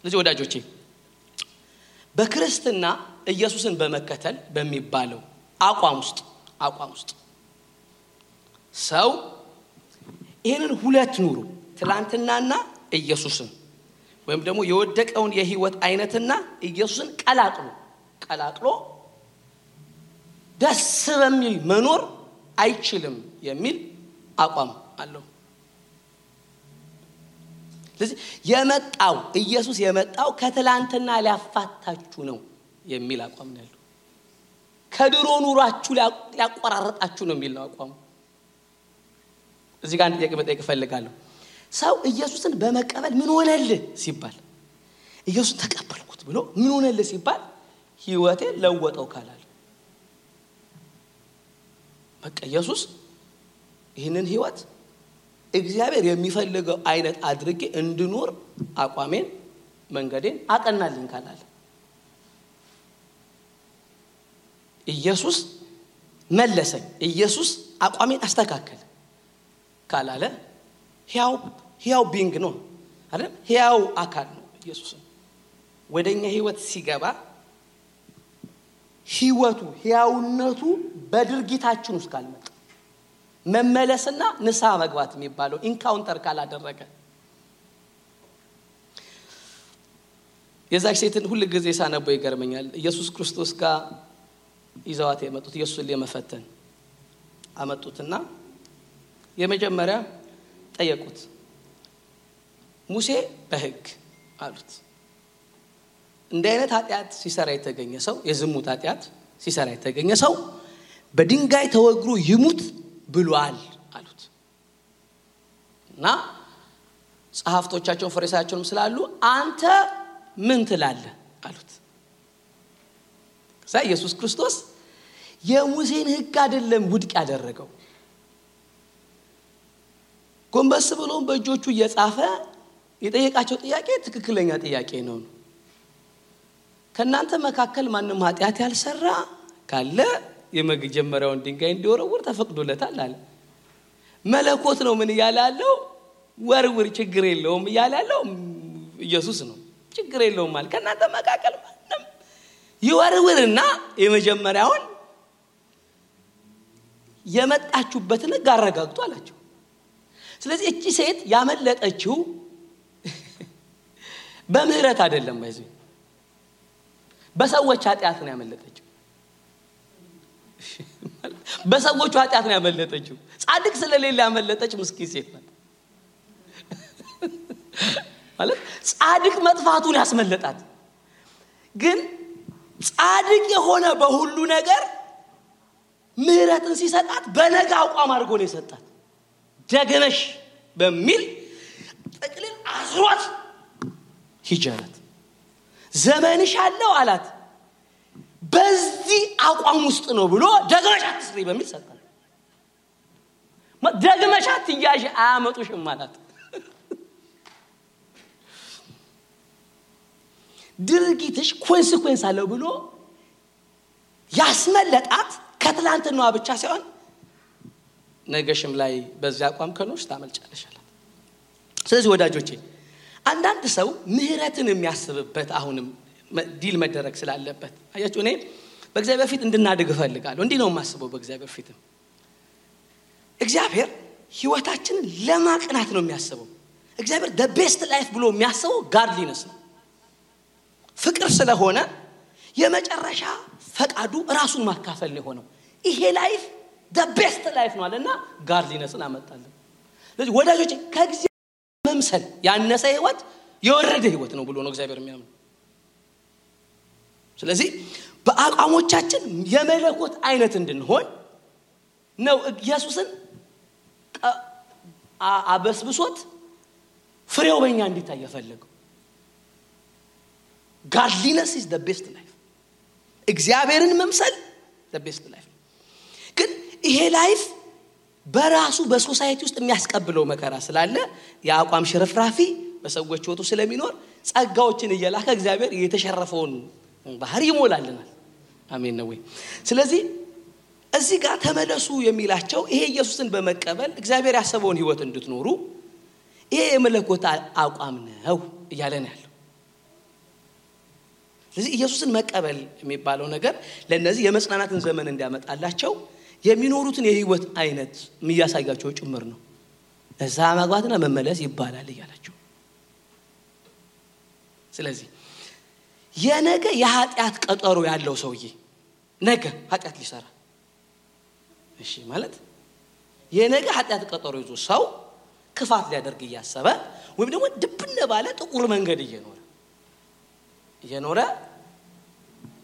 ስለዚህ ወዳጆቼ በክርስትና ኢየሱስን በመከተል በሚባለው አቋም ውስጥ ሰው ይሄንን ሁለት ኑሮ ትላንትናና ኢየሱስን ወይም ደግሞ የወደቀውን የህይወት አይነትና ኢየሱስን ቀላቅሎ ደስ በሚል መኖር አይችልም የሚል አቋም አለው ስለዚህ ኢየሱስ የመጣው ከትላንትና ሊያፋታችሁ ነው የሚል አቋም ነው ያለው ከድሮ ኑሯችሁ ሊያቆራረጣችሁ ነው የሚል አቋም እዚህ ጋር ጥያቄ መጠየቅ ፈልጋለሁ ሰው ኢየሱስን በመቀበል ምን ሆነልህ ሲባል ኢየሱስን ተቀበልኩት ብሎ ምን ሆነልህ ሲባል ህይወቴ ለወጠው ካላል በቃ ኢየሱስ ይህንን ህይወት እግዚአብሔር የሚፈልገው አይነት አድርጌ እንድኖር አቋሜን መንገዴን አቀናልኝ ካላል ኢየሱስ መለሰኝ ኢየሱስ አቋሜን አስተካከለ ካላለ ሕያው ቢንግ ነው አይደል ሕያው አካል ነው ኢየሱስ ወደኛ ህይወት ሲገባ ህይወቱ ሕያውነቱ በድርጊታችን ውስጥ ካልመጣ መመለስና ንስሐ መግባት የሚባለው ኢንካውንተር ካላደረገ የዛች ሴትን ሁሉ ጊዜ ሳነበው ይገርመኛል ኢየሱስ ክርስቶስ ጋር ይዘዋት የመጡት ኢየሱስን ለመፈተን አመጡትና የመጀመሪያ ጠየቁት ሙሴ በህግ አሉት እንደ አይነት ኃጢያት ሲሰራ የተገኘ ሰው የዝሙት ኃጢያት ሲሰራ የተገኘ ሰው በድንጋይ ተወግሮ ይሙት ብሏል አሉት እና ጸሐፍቶቻቸውን ፈሪሳውያቸውም ስላሉ አንተ ምን ትላለህ አሉት ኢየሱስ ክርስቶስ የሙሴን ሕግ አይደለም ውድቅ ያደረገው። ጎንበስ ብሎ በእጆቹ እየጻፈ የጠየቃቸው ጥያቄ ትክክለኛ ጥያቄ ነው። ከናንተ መካከል ማንም ኃጢአት ያልሰራ ካለ የመጀመሪያውን ድንጋይ እንዲወረውር ተፈቅዶለታል አለ። መለኮት ነው ምን ያላለው? ወርውር ችግር የለውም ያላለው ኢየሱስ ነው። ችግር የለውም ማለት ከናንተ መካከል ማንም ይወርውርና የመጀመሪያውን የመጣችሁበትን ጋረጋግጡ አላቸው። ስለዚህ እቺ ሴት ያመለጠችው በምህረት አይደለም፣ በሰዎች ኃጢአት ነው ያመለጠችው። በሰዎች ኃጢአት ነው ያመለጠችው። ጻድቅ ስለሌለ ያመለጠች ምስኪን ሴት ናት ማለት ጻድቅ መጥፋቱን ያስመለጣት። ግን ጻድቅ የሆነ በሁሉ ነገር ምህረትን ሲሰጣት በነጋ አቋም አድርጎ ነው የሰጣት። ደግነሽ በሚል ጥቅልል አስሯት ሂጃላት ዘመንሽ አለው አላት። በዚህ አቋም ውስጥ ነው ብሎ ደግመሽ አትስሪ በሚል ሰጣት። ደግመሽ አትያዥ አያመጡሽም ማለት ድርጊትሽ ኮንሲኩዌንስ አለው ብሎ ያስመለጣት ከትላንትናዋ ብቻ ሳይሆን ነገሽም ላይ በዚያ አቋም ከኖርሽ ታመልጫለሽ አላት። ስለዚህ ወዳጆቼ አንዳንድ ሰው ምህረትን የሚያስብበት አሁንም ዲል መደረግ ስላለበት አያችሁ፣ እኔ በእግዚአብሔር ፊት እንድናድግ እፈልጋለሁ። እንዲህ ነው የማስበው። በእግዚአብሔር ፊት እግዚአብሔር ህይወታችንን ለማቅናት ነው የሚያስበው። እግዚአብሔር the best life ብሎ የሚያስበው godliness ነው። ፍቅር ስለሆነ የመጨረሻ ፈቃዱ ራሱን ማካፈል ነው ሆነው ይሄ ላይፍ the best life ነው አለና godliness-ን አመጣለን። ስለዚህ ወዳጆቼ ከእግዚአብሔር መምሰል ያነሰ ህይወት የወረደ ህይወት ነው ብሎ ነው እግዚአብሔር የሚያምነው። ስለዚህ በአቋሞቻችን የመለኮት አይነት እንድንሆን ነው ኢየሱስን አበስብሶት ፍሬው በእኛ እንዲታይ የፈለገው። godliness is the best life። እግዚአብሔርን መምሰል the best life። ግን ይሄ ላይፍ በራሱ በሶሳይቲ ውስጥ የሚያስቀብለው መከራ ስላለ የአቋም ሽርፍራፊ በሰዎች ወጡ ስለሚኖር ጸጋዎችን እየላከ እግዚአብሔር የተሸረፈውን ባህሪ ይሞላልናል። አሜን ነው ወይ? ስለዚህ እዚህ ጋር ተመለሱ የሚላቸው ይሄ ኢየሱስን በመቀበል እግዚአብሔር ያሰበውን ህይወት እንድትኖሩ ይሄ የመለኮት አቋም ነው እያለ ነው ያለው። ስለዚህ ኢየሱስን መቀበል የሚባለው ነገር ለነዚህ የመጽናናትን ዘመን እንዲያመጣላቸው የሚኖሩትን የህይወት አይነት የሚያሳያቸው ጭምር ነው። እዛ ማግባትና መመለስ ይባላል እያላቸው። ስለዚህ የነገ የኃጢአት ቀጠሮ ያለው ሰውዬ ነገ ኃጢአት ሊሰራ እሺ ማለት የነገ ኃጢአት ቀጠሮ ይዞ ሰው ክፋት ሊያደርግ እያሰበ ወይም ደግሞ ድብነ ባለ ጥቁር መንገድ እየኖረ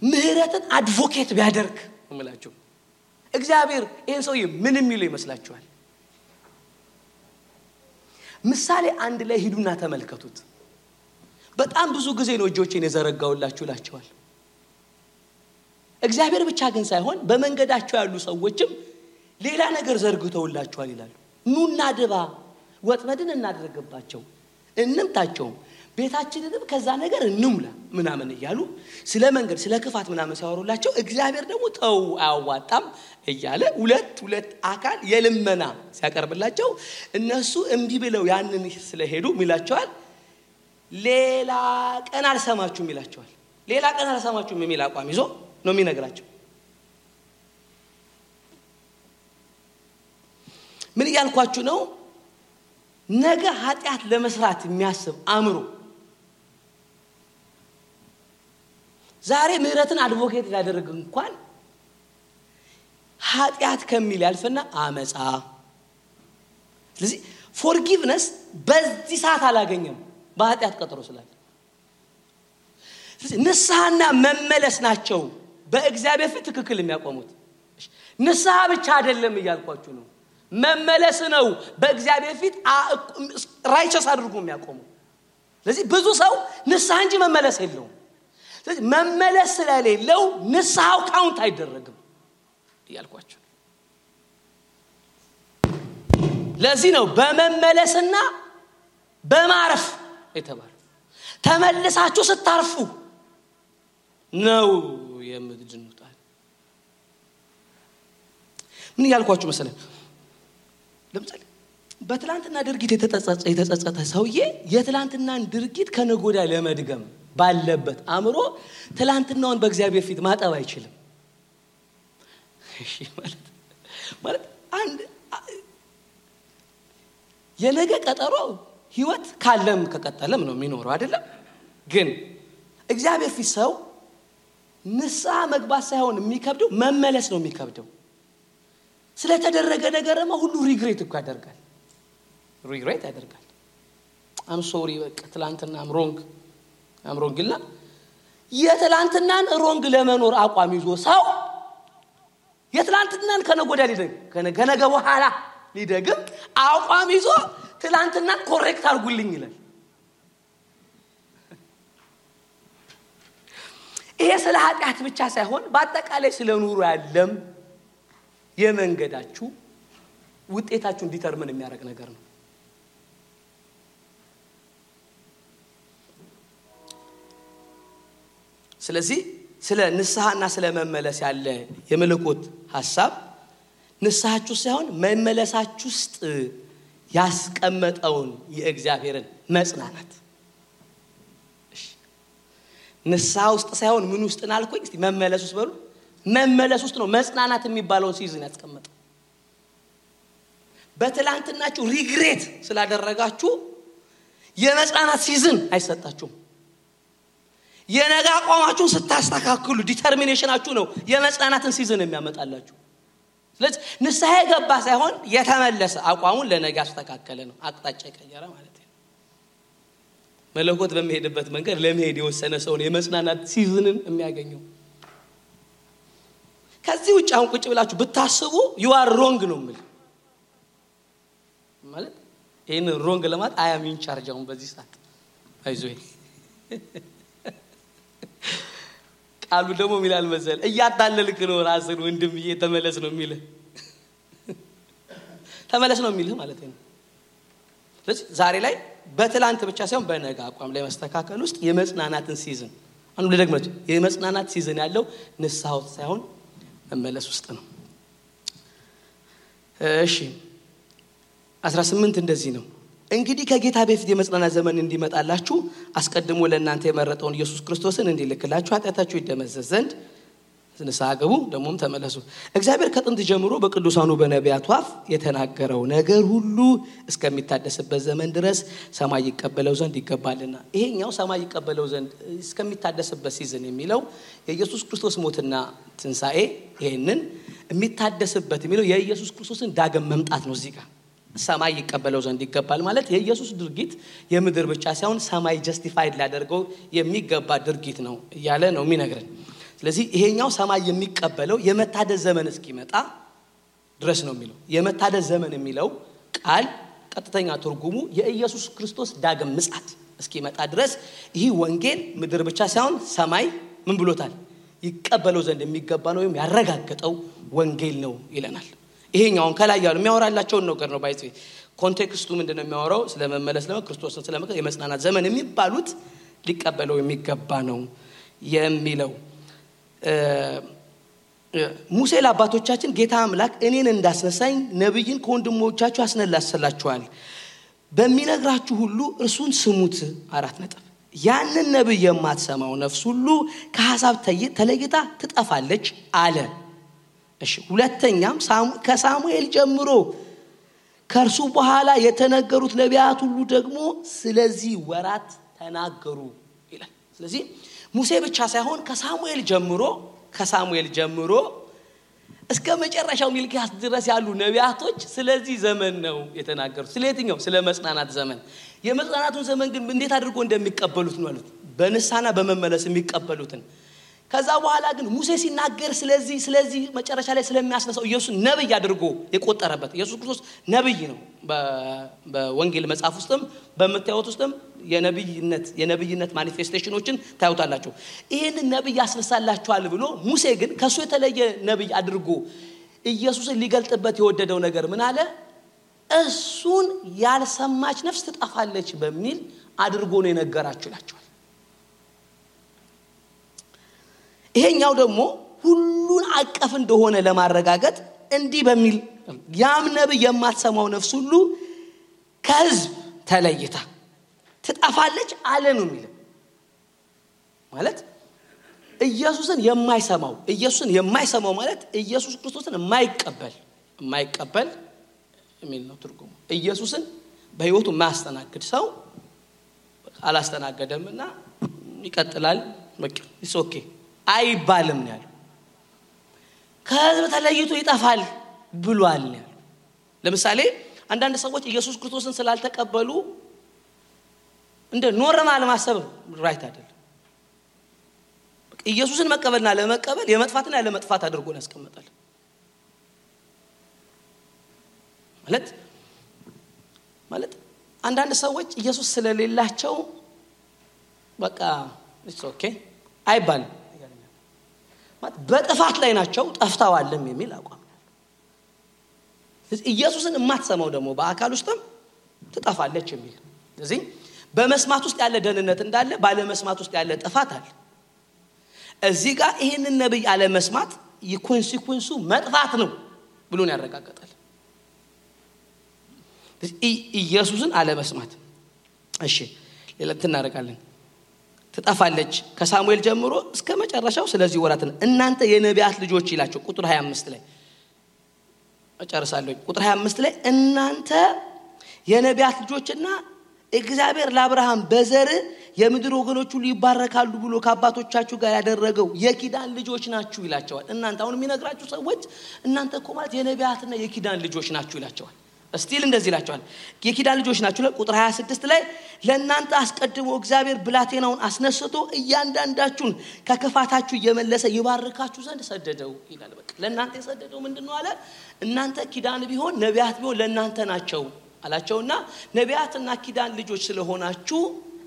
ምህረትን አድቮኬት ቢያደርግ እምላችሁ እግዚአብሔር ይሄን ሰውዬ ምን የሚለው ይመስላችኋል? ምሳሌ 1 ላይ ሂዱና ተመልከቱት። በጣም ብዙ ጊዜ ነው እጆቼን የዘረጋውላችሁ ላችኋል። እግዚአብሔር ብቻ ግን ሳይሆን በመንገዳቸው ያሉ ሰዎችም ሌላ ነገር ዘርግተውላችኋል ይላሉ። ኑና ድባ ወጥመድን እናደርግባቸው እንምታቸው ቤታችንንም ከዛ ነገር እንሙላ ምናምን እያሉ ስለ መንገድ ስለ ክፋት ምናምን ሲያወሩላቸው እግዚአብሔር ደግሞ ተው አያዋጣም እያለ ሁለት አካል የልመና ሲያቀርብላቸው እነሱ እንቢ ብለው ያንን ስለሄዱ ሚላቸዋል ሌላ ቀን አልሰማችሁም ይላቸዋል። ሌላ ቀን አልሰማችሁም የሚል አቋም ይዞ ነው የሚነግራቸው። ምን ያልኳችሁ ነው? ነገ ኃጢአት ለመስራት የሚያስብ አእምሮ ዛሬ ምህረትን አድቮኬት ያደረገ እንኳን ኃጢአት ከሚል ያልፈና አመጻ። ስለዚህ ፎርጊቭነስ በዚህ ሰዓት አላገኘም በኃጢአት ቀጠሮ ስላለ። ስለዚህ ንስሐና መመለስ ናቸው በእግዚአብሔር ፊት ትክክል የሚያቆሙት። ንስሐ ብቻ አይደለም እያልኳችሁ ነው፣ መመለስ ነው በእግዚአብሔር ፊት ራይቸስ አድርጎ የሚያቆሙ። ስለዚህ ብዙ ሰው ንስሐ እንጂ መመለስ የለውም። ስለዚህ መመለስ ስለሌለው ንስሐው ካውንት አይደረግም። እያልኳችሁ ለዚህ ነው በመመለስና በማረፍ የተባለው ተመልሳችሁ ስታርፉ ነው የምትድኑት ምን ያልኳችሁ መሰለኝ ለምሳሌ በትላንትና ድርጊት የተጸጸተ ሰውዬ የትላንትናን ድርጊት ከነጎዳ ለመድገም ባለበት አምሮ ትላንትናውን በእግዚአብሔር ፊት ማጠብ አይችልም እሺ ማለት አንድ የነገ ቀጠሮ ህይወት ካለም ከቀጠለም ነው የሚኖረው አይደለም ግን እግዚአብሔር ፊት ሰው ንስሐ መግባት ሳይሆን የሚከብደው መመለስ ነው የሚከብደው ስለተደረገ ነገርማ ሁሉ ሪግሬት እኮ ያደርጋል I'm sorry በቃ ትላንትና I'm wrong ግላ የትላንትናን ሮንግ ለመኖር አቋም ይዞ ሰው የትላንትናን ከነጎዳ ከነገ በኋላ ሊደግም አቋም ይዞ ትላንትናን ኮሬክት አድርጉልኝ ይላል ይሄ ስለ ኃጢአት ብቻ ሳይሆን በአጠቃላይ ስለ ኑሮ ያለም የመንገዳችሁ ውጤታችሁን ዲተርሚን የሚያደርግ ነገር ነው ስለዚህ ስለ ንስሐና ስለ መመለስ ያለ የመለኮት ሐሳብ ንስሐችሁ ሳይሆን መመለሳችሁ ውስጥ ያስቀመጠውን የእግዚአብሔርን መጽናናት ንስሐ ውስጥ ሳይሆን ምን ውስጥ እናልኩኝ እስቲ መመለስ ውስጥ በሉ መመለስ ውስጥ ነው መጽናናት የሚባለው ሲዝን ያስቀመጠው በትላንትናችሁ ሪግሬት ስላደረጋችሁ የመጽናናት ሲዝን አይሰጣችሁም የነገ አቋማችሁን ስታስተካክሉ ዲተርሚኔሽናችሁ ነው የመጽናናትን ሲዝን የሚያመጣላችሁ ስለዚህ ንስሐ የገባ ሳይሆን የተመለሰ አቋሙን ለነገ አስተካከለ ነው አቅጣጫ ቀየረ ማለት ነው መለኮት በሚሄድበት መንገድ ለመሄድ የወሰነ ሰው ነው የመጽናናት ሲዝንን የሚያገኘው ከዚህ ውጭ አሁን ቁጭ ብላችሁ ብታስቡ you are wrong ነው ማለት ይሄን wrong ለማለት I am in charge አሁን በዚህ ሰዓት አይዞህ ቃሉ ደግሞ ሚላል መሰል እያታለልክ ነው ራስን ወንድምዬ ተመለስ ነው የሚልህ ተመለስ ነው የሚልህ ማለት ነው ስለዚህ ዛሬ ላይ በትላንት ብቻ ሳይሆን በነገ አቋም ላይ መስተካከል ውስጥ የመጽናናትን ሲዝን አንዱ ለደግመት የመጽናናት ሲዝን ያለው ንስሐው ሳይሆን መመለስ ውስጥ ነው እሺ 18 እንደዚህ ነው እንግዲህ ከጌታ በፊት የመጽናናት ዘመን እንዲመጣላችሁ አስቀድሞ ለእናንተ የመረጠውን ኢየሱስ ክርስቶስን እንዲልክላችሁ ኃጢአታችሁ ይደመሰስ ዘንድ ንስሐ ግቡ ደሞም ተመለሱ እግዚአብሔር ከጥንት ጀምሮ በቅዱሳኑ በነቢያቱ አፍ የተናገረው ነገር ሁሉ እስከሚታደስበት ዘመን ድረስ ሰማይ ይቀበለው ዘንድ ይገባልና ይሄኛው ሰማይ ይቀበለው ዘንድ እስከሚታደስበት ሲዝን የሚለው የኢየሱስ ክርስቶስ ሞትና ትንሳኤ ይሄንን የሚታደስበት የሚለው የኢየሱስ ክርስቶስን ዳግም መምጣት ነው እዚህ ጋር ሰማይ ይቀበለው ዘንድ ይገባል ማለት የኢየሱስ ድርጊት የምድር ብቻ ሳይሆን ሰማይ ጀስቲፋይድ ሊያደርገው የሚገባ ድርጊት ነው እያለ ነው የሚነግረን ስለዚህ ይሄኛው ሰማይ የሚቀበለው የመታደስ ዘመን እስኪመጣ ድረስ ነው የሚለው የመታደስ ዘመን የሚለው ቃል ቀጥተኛ ትርጉሙ የኢየሱስ ክርስቶስ ዳግም ምጽአት እስኪመጣ ድረስ ይህ ወንጌል ምድር ብቻ ሳይሆን ሰማይ ምን ብሎታል ይቀበለው ዘንድ የሚገባ ነው ወይም ያረጋግጠው ወንጌል ነው ይለናል ይሄኛውን ከላይ ያለው የሚያወራላቸው ነገር ነው ባይጽ ኮንቴክስቱ ምንድነው የሚያወራው ስለመመለስ ነው ክርስቶስን ስለመቀበል የመጽናናት ዘመን የሚባሉት ሊቀበለው የሚገባ ነው የሚለው ሙሴ ለአባቶቻችን ጌታ አምላክ እኔን እንዳስነሳኝ ነብይን ከወንድሞቻችሁ አስነላስላችኋል በሚነግራችሁ ሁሉ እርሱን ስሙት 4 ነጥብ ያንን ነብይ የማትሰማው ነፍስ ሁሉ ከሐሳብ ተለይታ ትጠፋለች አለ እሺ ሁለተኛም ከሳሙኤል ጀምሮ ከርሱ በኋላ የተነገሩት ነቢያት ሁሉ ደግሞ ስለዚህ ወራት ተናገሩ ይላል ስለዚህ ሙሴ ብቻ ሳይሆን ከሳሙኤል ጀምሮ እስከ መጨረሻው ሚልኪያስ ድረስ ያሉ ነቢያቶች ስለዚህ ዘመን ነው የተናገሩት ስለየትኛው ስለ መጽናናት ዘመን የመጽናናቱን ዘመን ግን እንዴት አድርጎ እንደሚቀበሉት ነው ማለት በንስሐና በመመለስ የሚቀበሉትን ከዛ በኋላ ግን ሙሴ ሲናገር ስለዚህ መጨረሻ ላይ ስለሚያስነሳው ኢየሱስ ነብይ አድርጎ የቆጠረበት ኢየሱስ ክርስቶስ ነብይ ነው በወንጌል መጽሐፍ ውስጥም በመታየት ውስጥም የነብይነት ማኒፌስቴሽኖችን ታዩታላችሁ ይሄን ነብይ ያስነሳላችኋል ብሎ ሙሴ ግን ከሱ የተለየ ነብይ አድርጎ ኢየሱስን ሊገልጥበት የወደደው ነገር ምን አለ? እሱን ያልሰማች ነፍስ ትጠፋለች በሚል አድርጎ ነው የነገራችሁ ይላችኋል። ይሄኛው ደግሞ ሁሉን አቀፍ እንደሆነ ለማረጋገጥ እንዲህ በሚል ያም ነብይ የማትሰማው ነፍስ ሁሉ ከሕዝብ ተለይታ ትጠፋለች አለ ነው የሚለው። ማለት ኢየሱስን የማይሰማው ማለት ኢየሱስ ክርስቶስን የማይቀበል የሚል ነው ትርጉሙ። ኢየሱስን በህይወቱ የማያስተናግድ ሰው አላስተናገደምና ይቀጥላል በቃ ኦኬ አይባልም ነው ያለው። ከሕዝብ ተለይቶ ይጠፋል ብሏል ነው ያለው። ለምሳሌ አንዳንድ ሰዎች ኢየሱስ ክርስቶስን ስላልተቀበሉ እንደ ኖርማል ማሰብ ራይት አይደለም። ኢየሱስን መቀበልና ለመቀበል የመጥፋትና ያለመጥፋት አድርጎ ነው ያስቀምጣል። ማለት አንዳንድ ሰዎች ኢየሱስ ስለሌላቸው በቃ ኦኬ አይባልም ማለት በጥፋት ላይ ናቸው ጠፍተዋልም የሚል አቋም ነው። ኢየሱስን የማትሰማው ደግሞ በአካል ውስጥም ትጠፋለች የሚል። ስለዚህ በመስማት ውስጥ ያለ ደህንነት እንዳለ ባለ መስማት ውስጥ ያለ ጥፋት አለ። እዚህ ጋር ይሄንን ነብይ አለ መስማት የኮንሲኩዌንሱ መጥፋት ነው ብሎ ነው ያረጋግጣል። ኢየሱስን አለ መስማት እሺ ሌላ እናደርጋለን። ትጠፋለች ከሳሙኤል ጀምሮ እስከ መጨረሻው ስለዚህ ወራት እናንተ የነቢያት ልጆች ይላችሁ ቁጥር 25 ላይ እጨርሳለሁ። ቁጥር 25 ላይ እናንተ የነቢያት ልጆችና እግዚአብሔር ለአብርሃም በዘር የምድር ወገኖች ሁሉ ይባረካሉ ብሎ ከአባቶቻችሁ ጋር ያደረገው የኪዳን ልጆች ናችሁ ይላቸዋል። እናንተ አሁን የሚነግራችሁ ሰዎች እናንተ እኮ ማለት የነቢያትና የኪዳን ልጆች ናችሁ ይላቸዋል። እስቲል እንደዚህ ይላቸዋል የኪዳን ልጆች ናችሁ። ቁጥር 26 ላይ ለእናንተ አስቀድሞ እግዚአብሔር ብላቴናውን አስነስቶ እያንዳንዳችሁን ከክፋታችሁ እየመለሰ ይባርካችሁ ዘንድ ሰደደው ይላል። በቃ ለእናንተ የሰደደው ምንድነው አለ? እናንተ ኪዳን ቢሆን ነቢያት ቢሆን ለእናንተ ናቸው አላቸውና ነቢያትና ኪዳን ልጆች ስለሆናችሁ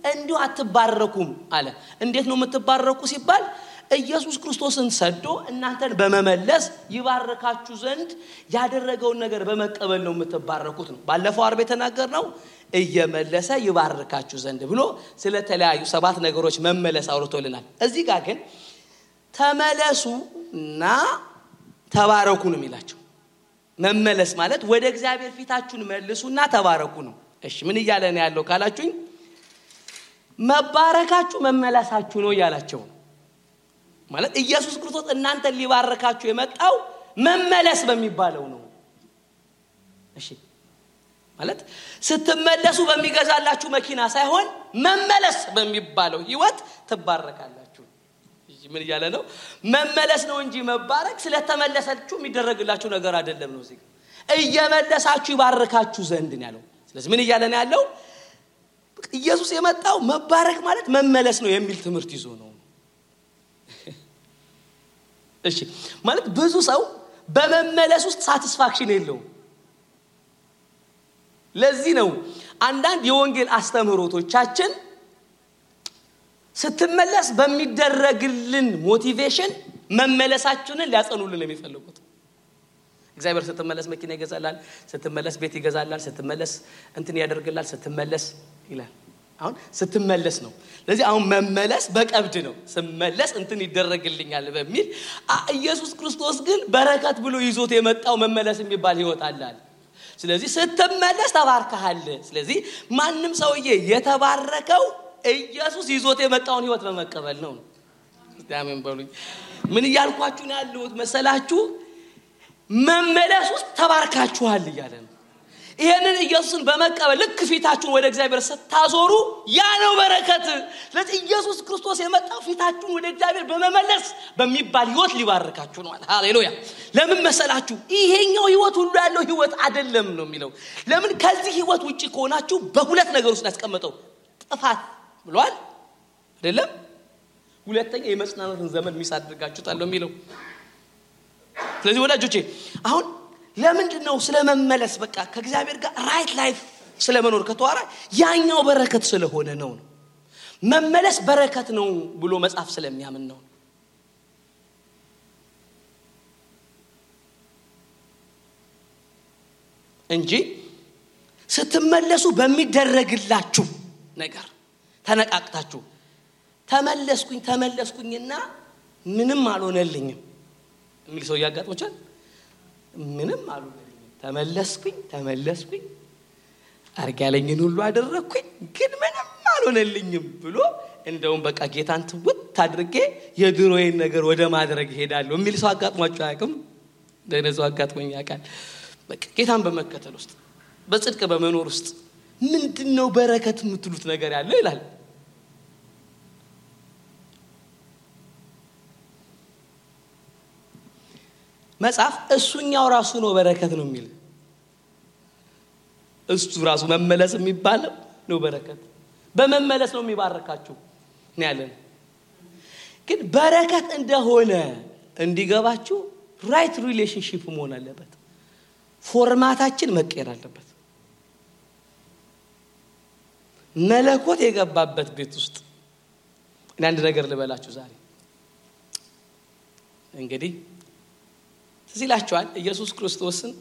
እንዲሁ አትባረኩም አለ። እንዴት ነው የምትባረኩ ሲባል ኢየሱስ ክርስቶስን ሰዶ እናንተን በመመለስ ይባርካችሁ ዘንድ ያደረገውን ነገር በመቀበል ነው የምትባረኩት ነው። ባለፈው አርብ የተናገርነው እየመለሰ ይባርካችሁ ዘንድ ብሎ ስለተለያዩ 7 ነገሮች መመለስ አውርቶልናል። እዚህ ጋር ግን ተመለሱና ተባረኩ ነው የሚላቸው። መመለስ ማለት ወደ እግዚአብሔር ፊታችሁን መልሱና ተባረኩ ነው። እሺ ምን እያለ ነው ያለው ካላችሁኝ መባረካችሁ መመለሳችሁ ነው ያላቸው። ማለት ኢየሱስ ክርስቶስ እናንተን ሊባርካችሁ የመጣው መመለስ በሚባለው ነው። እሺ ማለት ስትመለሱ በሚገዛላችሁ መኪና ሳይሆን መመለስ በሚባለው ህይወት ትባረካላችሁ። ምን እያለ ነው? መመለስ ነው እንጂ መባረክ ስለተመለሰችሁ የሚደረግላችሁ ነገር አይደለም ነው። እዚህ እየመለሳችሁ ይባርካችሁ ዘንድ ነው ያለው። ስለዚህ ምን እያለ ነው ያለው? ኢየሱስ የመጣው መባረክ ማለት መመለስ ነው የሚል ትምህርት ይዞ ነው። እሺ ማለት ብዙ ሰው በመመለስ ውስጥ ሳቲስፋክሽን የለውም። ለዚህ ነው አንዳንድ የወንጌል አስተምህሮቶቻችን ስትመለስ በሚደረግልን ሞቲቬሽን መመለሳችንን ሊያጸኑልን የሚፈልጉት። እግዚአብሔር ስትመለስ መኪና ይገዛላል፣ ስትመለስ ቤት ይገዛላል፣ ስትመለስ እንትን ያደርግላል፣ ስትመለስ ይላል። አሁን ስትመለስ ነው። ስለዚህ አሁን መመለስ በቀብድ ነው። ስመለስ እንትን ይደረግልኛል በሚል ኢየሱስ ክርስቶስ ግን በረከት ብሎ ይዞት የመጣው መመለስ የሚባል ህይወት አለ። ስለዚህ ስትመለስ ተባርከሃል። ስለዚህ ማንም ሰውዬ የተባረከው ኢየሱስ ይዞት የመጣውን ህይወት በመቀበል ነው። አሜን በሉኝ። ምን እያልኳችሁ ነው ያለሁት መሰላችሁ? መመለስ ውስጥ ተባርካችኋል እያለ ነው። ይሄንን ኢየሱስን በመቀበል ልክ ፊታችሁን ወደ እግዚአብሔር ስታዞሩ ያ ነው በረከት። ስለዚህ ኢየሱስ ክርስቶስ የመጣው ፊታችሁን ወደ እግዚአብሔር በመመለስ በሚባል ህይወት ሊባርካችሁ ነው። ሃሌሉያ። ለምን መሰላችሁ? ይሄኛው ህይወት ሁሉ ያለው ህይወት አይደለም ነው የሚለው። ለምን ከዚህ ህይወት ውጪ ከሆናችሁ በሁለት ነገር ውስጥ ያስቀመጠው ጥፋት ብሏል አይደለም? ሁለተኛ የመጽናናትን ዘመን ሚስ አድርጋችሁታል ነው የሚለው። ስለዚህ ወዳጆቼ አሁን ለምንድነው ስለመመለስ በቃ ከእግዚአብሔር ጋር ራይት ላይፍ ስለመኖር ከተዋራ ያኛው በረከት ስለሆነ ነው። መመለስ በረከት ነው ብሎ መጽሐፍ ስለሚያምን ነው። እንጂ ስትመለሱ በሚደረግላችሁ ነገር ተነቃቅታችሁ ተመለስኩኝና ምንም አልሆነልኝም የሚል ሰው ያጋጥሞቻል። ምንም አልሆነልኝም ተመለስኩኝ አርግ ያለኝን ሁሉ አደረኩኝ ግን ምንም አልሆነልኝም ብሎ እንደውም በቃ ጌታን ትውት አድርጌ የድሮዬን ነገር ወደ ማድረግ ሄዳለሁ የሚል ሰው አጋጥሟችሁ አያውቅም? ለነሱ አጋጥሞኝ ያውቃል። በቃ ጌታን በመከተል ውስጥ በጽድቅ በመኖር ውስጥ ምንድነው በረከት የምትሉት ነገር ያለው ይላል። መጽሐፍ እሱኛው ራሱ ነው በረከት ነው የሚል እሱ ራሱ መመለስ የሚባለው ነው በረከት በመመለስ ነው የሚባረካችሁ ነው ያለን። ግን በረከት እንደሆነ እንዲገባችሁ ራይት ሪሌሽንሺፕ መሆን አለበት። ፎርማታችን መቀየር አለበት። መለኮት የገባበት ቤት ውስጥ አንድ ነገር ልበላችሁ ዛሬ እንግዲህ ሲላችኋል ኢየሱስ ክርስቶስን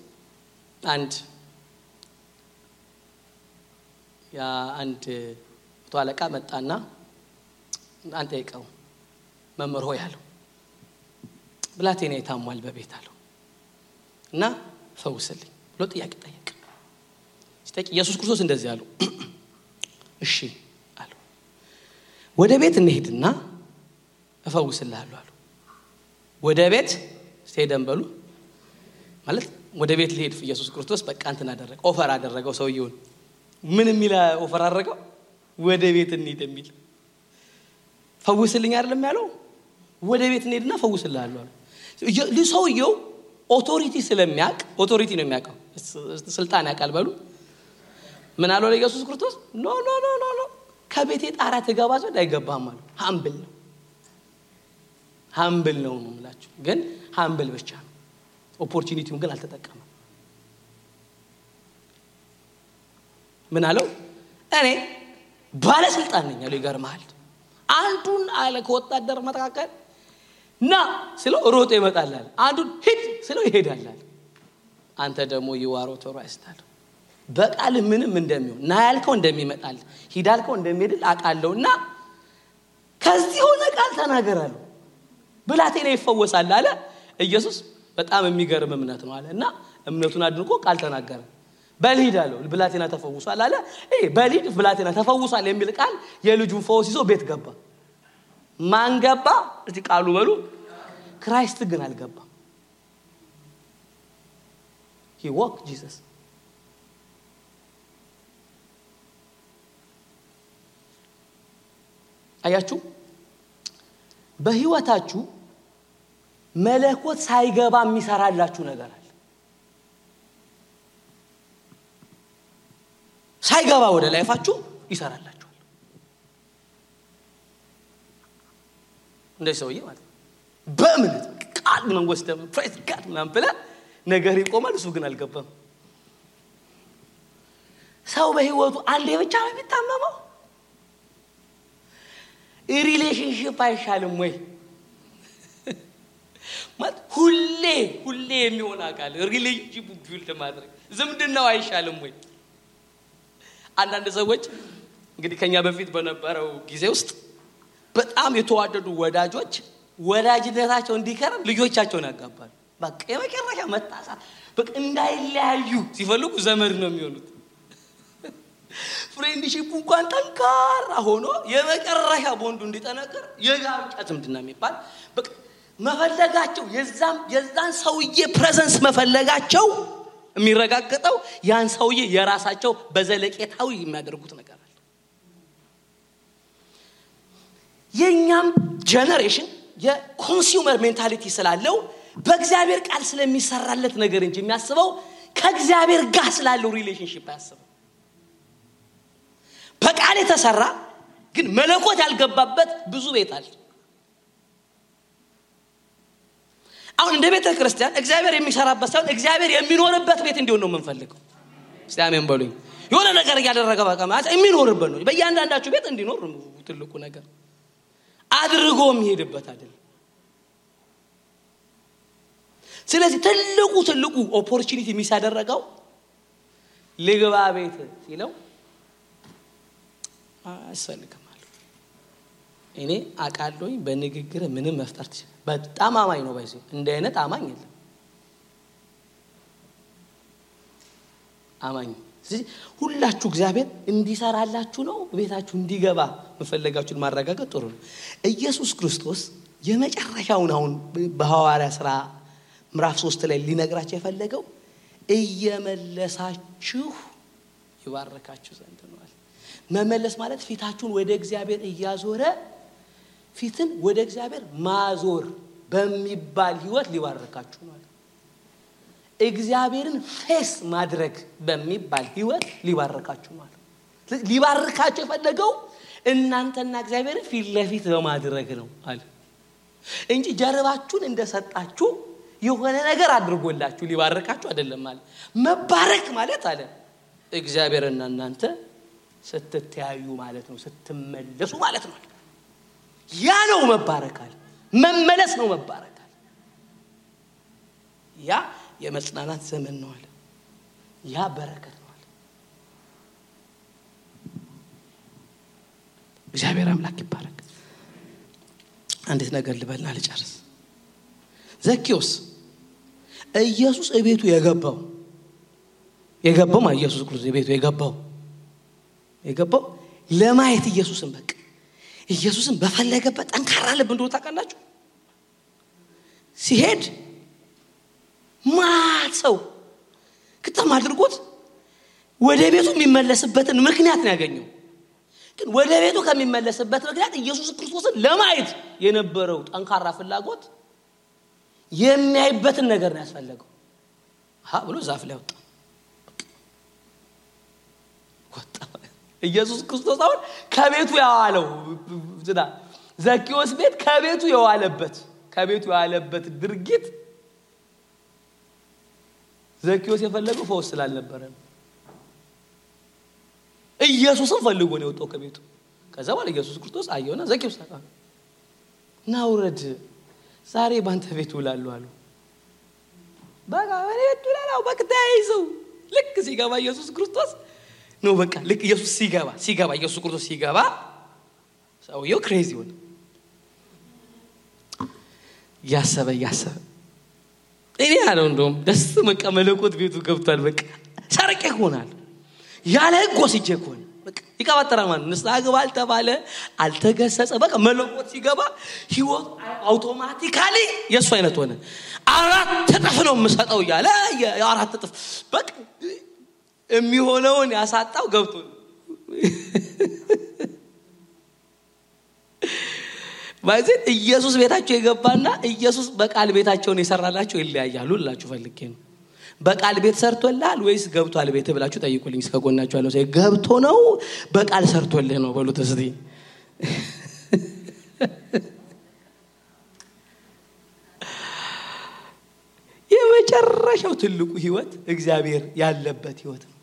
አንድ ተዋለቃ መጣና አንተ ይቀው መምህር ሆይ አለው ብላቴና ይታሟል በቤት አለው እና ፈውስልኝ ብሎ ጥያቄ ጠየቀ። ሲጠይቅ ኢየሱስ ክርስቶስ እንደዚህ አለው እሺ አለው ወደ ቤት እንሄድና እፈውስልሃለሁ አለው። ወደ ቤት ሄደን በሉ ማለት ወደ ቤት ሊሄድ ኢየሱስ ክርስቶስ በቃ እንትን አደረገ ኦፈር አደረገው ሰውየውን ምን የሚል ኦፈር አደረገው ወደ ቤት እንሂድ የሚል ፈውስልኝ አይደለም ያለው ወደ ቤት እንሂድና ፈውስልሃለሁ አለው። ሰውየው ኦቶሪቲ ስለሚያውቅ ኦቶሪቲ ነው የሚያውቀው ስልጣን ያውቃል በሉ ምን አለው ለኢየሱስ ክርስቶስ ኖ ከቤቴ ጣራ ተገባ ዘንድ አይገባም አለው። ሃምብል ነው የምላችሁ ግን ሃምብል ብቻ ነው ኦፖርቹኒቲውን ግን አልተጠቀመም። ምን አለው እኔ ባለስልጣን ነኝ አለው። ይገርማል አንዱን አለ ከወጣደር መተካከል ና ስለው ሮጦ ይመጣል አንዱን ሂድ ስለው ይሄዳል። አንተ ደግሞ ይዋሮ ተራስተሃል በቃል ምንም እንደሚሆን ና ያልከው እንደሚመጣል ሂድ ያልከው እንደሚሄድ አቃለውና ከዚህ ሆነ ቃል ተናገራለሁ ብላቴና ይፈወሳል አለ ኢየሱስ። በጣም የሚገርም እምነት ነው አለና እምነቱን አድንቆ ቃል ተናገረ። በልሂድ አለው ብላቴና ተፈውሷል አለ። በልሂድ ብላቴና ተፈውሷል የሚል ቃል የልጁን ፈውስ ይዞ ቤት ገባ። ማን ገባ? እዚህ ቃሉ በሉ ክራይስት ግን አልገባም። he walked Jesus አያችሁ በህይወታችሁ መለኮት ሳይገባ የሚሰራላችሁ ነገር አለ። ሳይገባ ወደ ላይፋችሁ ይሰራላችኋል። እንደዚህ ሰውዬ ማለት በእምነት ቃል መንጎስ ደም ፕሬዝ ጋድ ምናምን ብላ ነገር ይቆማል። እሱ ግን አልገባም። ሰው በህይወቱ አንዴ ብቻ ነው የሚታመመው። ሪሌሽንሺፕ አይሻልም ወይ ማለት ሁሌ የሚሆን አካል ሪሌሽንሺፕ ቢልድ ማድረግ ዝምድናው አይሻልም ወይ? አንዳንድ ሰዎች እንግዲህ ከኛ በፊት በነበረው ጊዜ ውስጥ በጣም የተዋደዱ ወዳጆች ወዳጅነታቸው እንዲከረም ልጆቻቸውን ያጋባሉ። በቃ የመጨረሻ መጣሳት በቃ እንዳይለያዩ ሲፈልጉ ዘመድ ነው የሚሆኑት። ፍሬንድሺፕ እንኳን ጠንካራ ሆኖ የመጨረሻ ቦንዱ እንዲጠነክር የጋብቻ ዝምድና የሚባል በቃ መፈለጋቸው የዛን ሰውዬ ፕሬዘንስ መፈለጋቸው የሚረጋገጠው ያን ሰውዬ የራሳቸው በዘለቄታው የሚያደርጉት ነገር አለ። የኛም ጀነሬሽን የኮንሱመር ሜንታሊቲ ስላለው በእግዚአብሔር ቃል ስለሚሰራለት ነገር እንጂ የሚያስበው ከእግዚአብሔር ጋር ስላለው ሪሌሽንሺፕ ያስበው። በቃል የተሰራ ግን መለኮት ያልገባበት ብዙ ቤት አለ። አሁን እንደ ቤተ ክርስቲያን እግዚአብሔር የሚሰራበት ሳይሆን እግዚአብሔር የሚኖርበት ቤት እንዲሆን ነው የምንፈልገው። እስቲ አሜን በሉኝ። የሆነ ነገር ያደረገ በቃ ማለት የሚኖርበት ነው። በእያንዳንዳችሁ ቤት እንዲኖር ነው ትልቁ ነገር። አድርጎ የሚሄድበት አይደል። ስለዚህ ትልቁ ኦፖርቹኒቲ የሚያደርገው ልግባ ቤት ሲለው አስፈልግም አለ። እኔ አቃለሁኝ በንግግር ምንም መፍጠር ትችል። በጣም አማኝ ነው ባይዘው እንደ አይነት አማኝ የለም አማኝ። ስለዚህ ሁላችሁ እግዚአብሔር እንዲሰራላችሁ ነው ቤታችሁ እንዲገባ መፈለጋችሁን ማረጋገጥ ጥሩ ነው። ኢየሱስ ክርስቶስ የመጨረሻውን አሁን በሐዋርያ ሥራ ምዕራፍ 3 ላይ ሊነግራችሁ የፈለገው እየመለሳችሁ ይባርካችሁ ዘንድ ነው አለ። መመለስ ማለት ፊታችሁን ወደ እግዚአብሔር እያዞረ ፊትን ወደ እግዚአብሔር ማዞር በሚባል ህይወት ሊባርካችሁ ነው አለ። እግዚአብሔርን ፌስ ማድረግ በሚባል ህይወት ሊባርካችሁ ነው አለ። ሊባርካችሁ የፈለገው እናንተና እግዚአብሔርን ፊት ለፊት በማድረግ ነው አለ እንጂ ጀርባችሁን እንደሰጣችሁ የሆነ ነገር አድርጎላችሁ ሊባርካችሁ አይደለም አለ። መባረክ ማለት አለ እግዚአብሔርና እናንተ ስትተያዩ ማለት ነው፣ ስትመለሱ ማለት ነው። ያ ነው መባረክ አለ። መመለስ ነው መባረክ አለ። ያ የመጽናናት ዘመን ነው አለ። ያ በረከት ነው አለ። እግዚአብሔር አምላክ ይባረክ። አንዲት ነገር ልበልና ልጨርስ። ዘኪዮስ ኢየሱስ እቤቱ የገባው ኢየሱስ ክርስቶስ እቤቱ የገባው ለማየት ኢየሱስን በቃ ኢየሱስን በፈለገበት ጠንካራ ልብ እንደሆነ ታውቃላችሁ። ሲሄድ ማሰው ከተማ አድርጎት ወደ ቤቱ የሚመለስበትን ምክንያት ነው ያገኘው። ግን ወደ ቤቱ ከሚመለስበት ምክንያት ኢየሱስ ክርስቶስን ለማየት የነበረው ጠንካራ ፍላጎት የሚያይበትን ነገር ነው ያስፈልገው። ብሎ ዛፍ ላይ ወጣ። ኢየሱስ ክርስቶስ አሁን ከቤቱ ያዋለው ዘኪዮስ ቤት ከቤቱ የዋለበት ድርጊት ዘኪዮስ የፈለገው ፈውስ ስላልነበረ ኢየሱስን ፈልጎ ነው የወጣው ከቤቱ። ከዛ በኋላ ኢየሱስ ክርስቶስ አየውና ዘኪዮስ ናውረድ ዛሬ ባንተ ቤት ውላለሁ አሉ። በቃ እኔ ቤት ውላለሁ በቃ ተይዘው ልክ ሲገባ ኢየሱስ ክርስቶስ ነው በቃ ልክ ኢየሱስ ሲገባ ኢየሱስ ክርስቶስ ሲገባ ሰውየው ክሬዚ ሆነ። ያሰበ እኔ ያለው እንደውም ደስ መቀመለቆት ቤቱ ገብቷል። በቃ ሰርቄ ሆናል ያለ ህግ ወስጄ ሆነ በቃ ይቀባጠራል ማለት ንስሐ ግባ አልተባለ አልተገሰጸ። በቃ መለቆት ሲገባ ህይወት አውቶማቲካሊ የሱ አይነት ሆነ። 4 እጥፍ ነው የምሰጠው ያለ 4 እጥፍ በቃ የሚሆነውን ያሳጣው ገብቶ ማለት ኢየሱስ ቤታቸው የገባና ኢየሱስ በቃል ቤታቸውን የሰራላቸው ይለያያሉ ልላችሁ ፈልጌ ነው። በቃል ቤት ሰርቶልሃል ወይስ ገብቷል ቤት ብላችሁ ጠይቁልኝ። እስከጎናችሁ ያለው ሰው ገብቶ ነው በቃል ሰርቶልህ ነው በሉት እስቲ። የመጨረሻው ትልቁ ህይወት እግዚአብሔር ያለበት ህይወት ነው።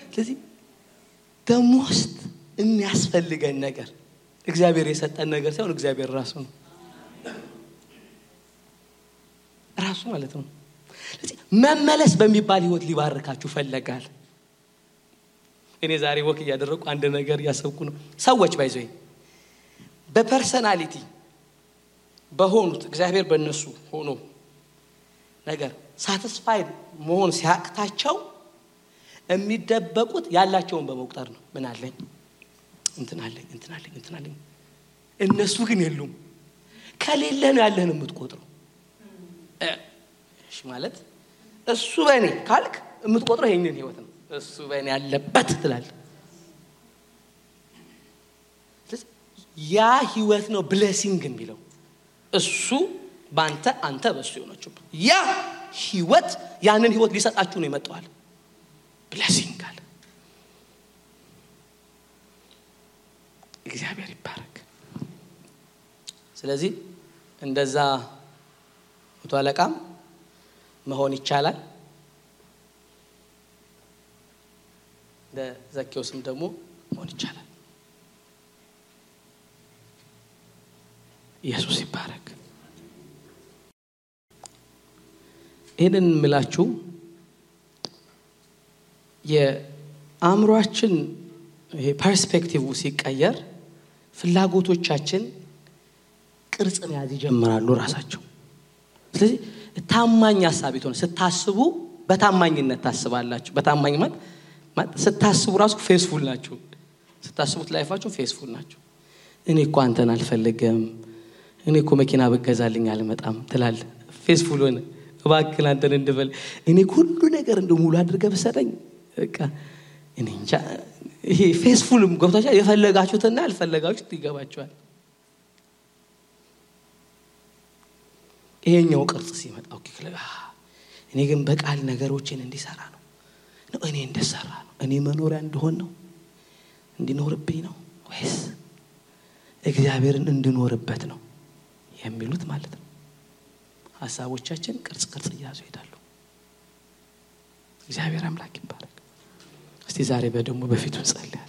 ስለዚህ ደሞስት የሚያስፈልገን ነገር እግዚአብሔር የሰጠን ነገር ሳይሆን እግዚአብሔር ራሱ ነው ማለት ነው። ስለዚህ መመለስ በሚባል ህይወት ሊባርካችሁ ፈለጋል። እኔ ዛሬ ወክ ያደረኩ አንድ ነገር ያሰብኩ ነው። ሰዎች ባይዘይ በፐርሰናሊቲ በሆኑት እግዚአብሔር በእነሱ ሆኖ ነገር ሳቲስፋይድ መሆን ሲያቅታቸው የሚደበቁት ያላቸውን በመቁጠር ነው። ምን አለኝ እንትን አለኝ እነሱ ግን የሉም። ከሌለ ነው ያለህን የምትቆጥረው። እሺ ማለት እሱ በእኔ ካልክ የምትቆጥረው ይሄንን ህይወት ነው። እሱ በእኔ ያለበት ትላለህ። ያ ህይወት ነው ብሌሲንግ የሚለው። እሱ ባንተ አንተ በሱ ይሆናችሁ። ያ ህይወት ያንን ህይወት ሊሰጣችሁ ነው የመጣው። ብሌሲንግ አለ። እግዚአብሔር ይባረክ። ስለዚህ እንደዛ መቶ አለቃም መሆን ይቻላል። ዘኪዮስም ደግሞ መሆን ይቻላል። ኢየሱስ ይባረክ። ይሄንን ምላችሁ የአእምሮአችን ይሄ ፐርስፔክቲቭ ሲቀየር ፍላጎቶቻችን ቅርጽ መያዝ ይጀምራሉ ራሳቸው። ስለዚህ ታማኝ ሐሳብ ይተው ስታስቡ በታማኝነት ታስባላችሁ። በታማኝ ማለት ስታስቡ ራሱ ፌስፉል ናችሁ። ስታስቡት ላይፋችሁ ፌስፉል ናችሁ። እኔ እኮ አንተን አልፈልግም፣ እኔ እኮ መኪና በገዛልኝ አልመጣም ትላለህ። ፌስፉል ሆነ እባክህ አንተን እንድበል እኔ ሁሉ ነገር እንደሙሉ አድርገህ በሰጠኝ በቃ እኔ እንጃ። ይሄ ፌስፉልም ገብታችሁ የፈለጋችሁትና ያልፈለጋችሁት ይገባችኋል። ይሄኛው ቅርጽ ሲመጣ ኦኬ እኔ ግን በቃል ነገሮችን እንዲሰራ ነው እኔ እንደሰራ ነው እኔ መኖሪያ እንደሆን ነው እንዲኖርብኝ ነው ወይስ እግዚአብሔርን እንድኖርበት ነው የሚሉት ማለት ነው። ሐሳቦቻችን ቅርጽ ይያዙ ይሄዳሉ። እግዚአብሔር አምላክ ይባረክ። እስቲ ዛሬ በደሙ በፊቱ ጸልይ።